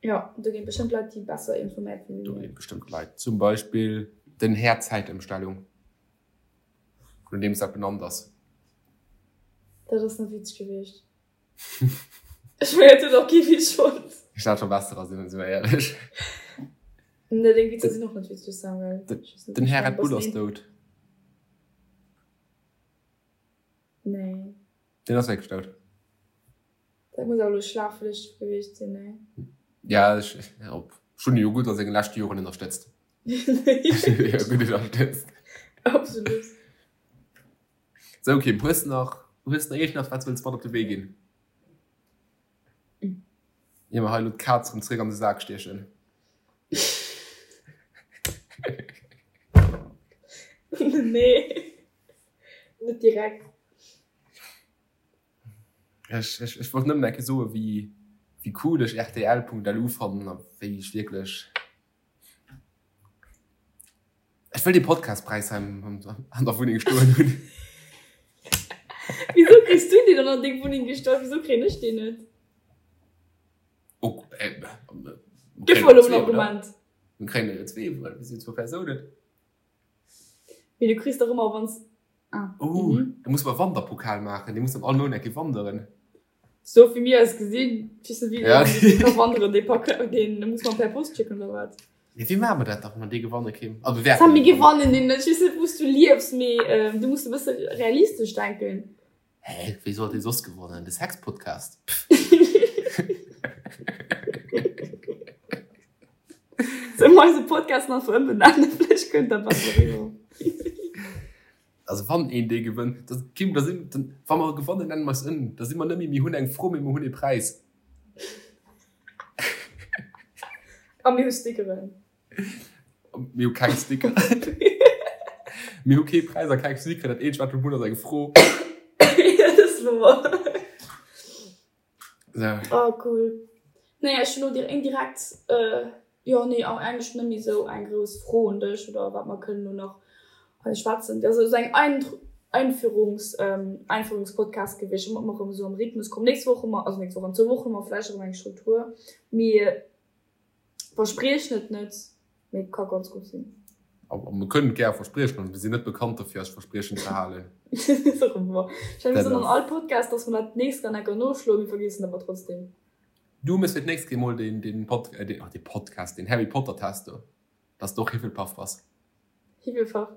Jo, do ginn et bestëmmt Leit, déi besser informéiert sinn wéi mir. Do ginn et bestëmmt Leit, zum Beispill den Här Zäitëmstellung, no deem s dat benannt ass. Dat ass net witzeg gewiescht. Ech mengen, dat huet och kee Witz fonnt. Ech hat scho besserer, si mer éierlech. Nee, deng Witzer sinn och net witzeg, Samuel. Den Här Red Bull ass dout. Nee. Deen ass wierklech dout. Dat muss awer elo schlaflech gewiescht sinn, nee? Ja, ech, op, ech hunn e jo gutt a sengen leschte Joren ënnerstëtzt. Ech hunn e jo gutt ënnerstëtzt. Absolut. Sou, Kim, hues de nach, hues de nach iergendwas, wat s wëlls mat op de Wee ginn? Ier mer hei elo d'Kaz erëm zréck an de Sak stiechen. Nee, net direkt. Ech, ech, ech wollt nëmmen eng Kéier soen, wéi, wéi cool ech rtl.lu fannen a wéi ech wierklech. Ech wëll dee Podcastpräis hei am, an der Wunneng stoen hunn. Wisou kriss du deen dann an deng Wunneng gestallt? Wisou kréien ech deen net? Oh, äh, Gëff mer elo en Argument. Mir kréien der jo zwee, well mir sinn zwou Persounen. Mee du kriss dach ëmmer wanns ah. Oh, da muss mer Wanderpokal maachen, dee muss dann all Mount eng Kéier wanderen. Sou wéi mir eis gesinn, weess net wéi dee ka wanderen, dee Pak, deen muss mer per Post schécken oder wat? Mee wéi maache mer dat da wa mer dee gewanne Kim? Also mir wäerten Sam, mir gewannen deen net, ech weess net wou s du liefs, mee du muss e bësse realistesch denken. Hä, wéi soll dee soss gewonnen? De Sexpodcast? Pff. Solle mer eise Podcast nach ëmbenennen? Vläicht kënnt dat besser eriwwer. Also wann een dee gewënnt, da, Kim, da sinn, dann, wa mer gewannen, nennen mer eis ëm. Da si mer net méi mir hunn eng Fro, mee mer hunn ee Präis. A mir hu Stickeren. Mir hu keng Sticker. Mir hu kee Präis a keng Sticker. Dat eenzegt, wat mir hunn, ass eng Fro. Ja, dat ass wouer. So. Oh, cool. Naja, ech hunn elo indirekt, jo, nee, eigentlech net méi esou eng grouss Fro un dech oder wat mer kënnen elo nach hei schwätzen. Dat ass esou eng Einführungs, Einführungspodcast gewiescht, wou mer erëm esou am Rhythmus kommen. Nächst Woch hu mer, also nächst Woch, an zwou Wochen hu mer vläicht erëm eng Struktur. Mee Verspriechen et net, mee et ka ganz gutt sinn. A mir kënnen et gär verspriechen, also mir sinn net bekannt derfir eis Verspriechen ze halen. Dat ass och wouer. Ech mengen, mir soen an all Podcast, dass mer dat d'nächst dann enker noschloen, mir vergiessen et awer trotzdem. Du méchs fir d'nächst Kéier mol deen, deen Pod, deen, ach dee Podcast, deen Harry Potter Test do, dass de och Hifflepuff bass. Hifflepuff?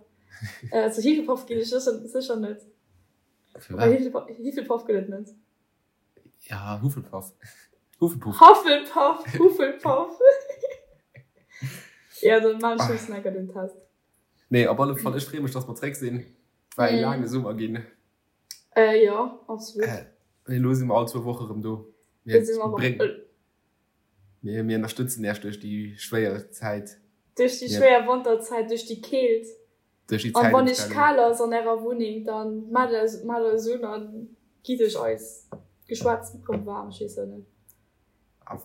Zu Hifflepuff ginn ech sécher, sécher net. Firwat? Hifflepuff gëtt et net. Ja, Hufflepuff. Hufflepuff. Hufflepuff, Hufflepuff. Ja, dann maan ech just enker den Test. Nee, op alle Fall, ech freeë mech, dass mer zréck sinn. Et war ee laange Summer ginn. Äh, jo, absolut. Äh, elo si mer all zwou Woche rëm do. Mir, bréng, mir, mir ënnerstëtzen Iech duerch déi schwéier Zäit. Duerch déi schwéier Wanterzäit, duerch déi Keelt. Duerch déi An wann iech Zäitëmstellung. kal ass an ärer Wunneng, dann maacht eis, maacht eis un an gitt iech eis Geschwätz rëm waarm. Ech weess jo net. A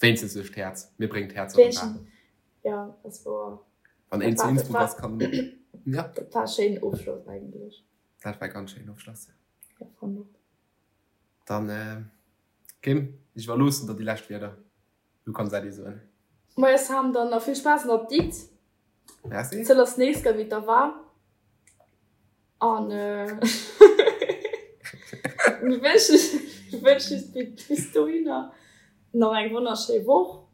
wéinstens duerch d'Häerz. Mir bréngen d'Häerzer rëm waarm. Wéinstens, ja, ass wouer. Wann Dat een zu war, dat Innsbruck war, ass, kann, ja. dat war e schéinen Ofschloss eigentlech. Dat war e ganz schéinen Ofschloss. Ja, fannen och. Dann, Kim, ech iwwerloossen der déi lescht Wierder. Du kanns Äddi soen. Moie Sam, dann nach vill Spaass an der Ditt. Merci. Zëll ass nees gei wéi et da war. An mir wënschen wënschen iech bis dohinner nach eng wonnerschéi Woch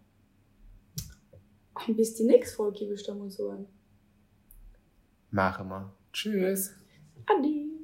an bis déi nächst Folg, géif ech da mol soen. Maache mer. Tschüss. Adi.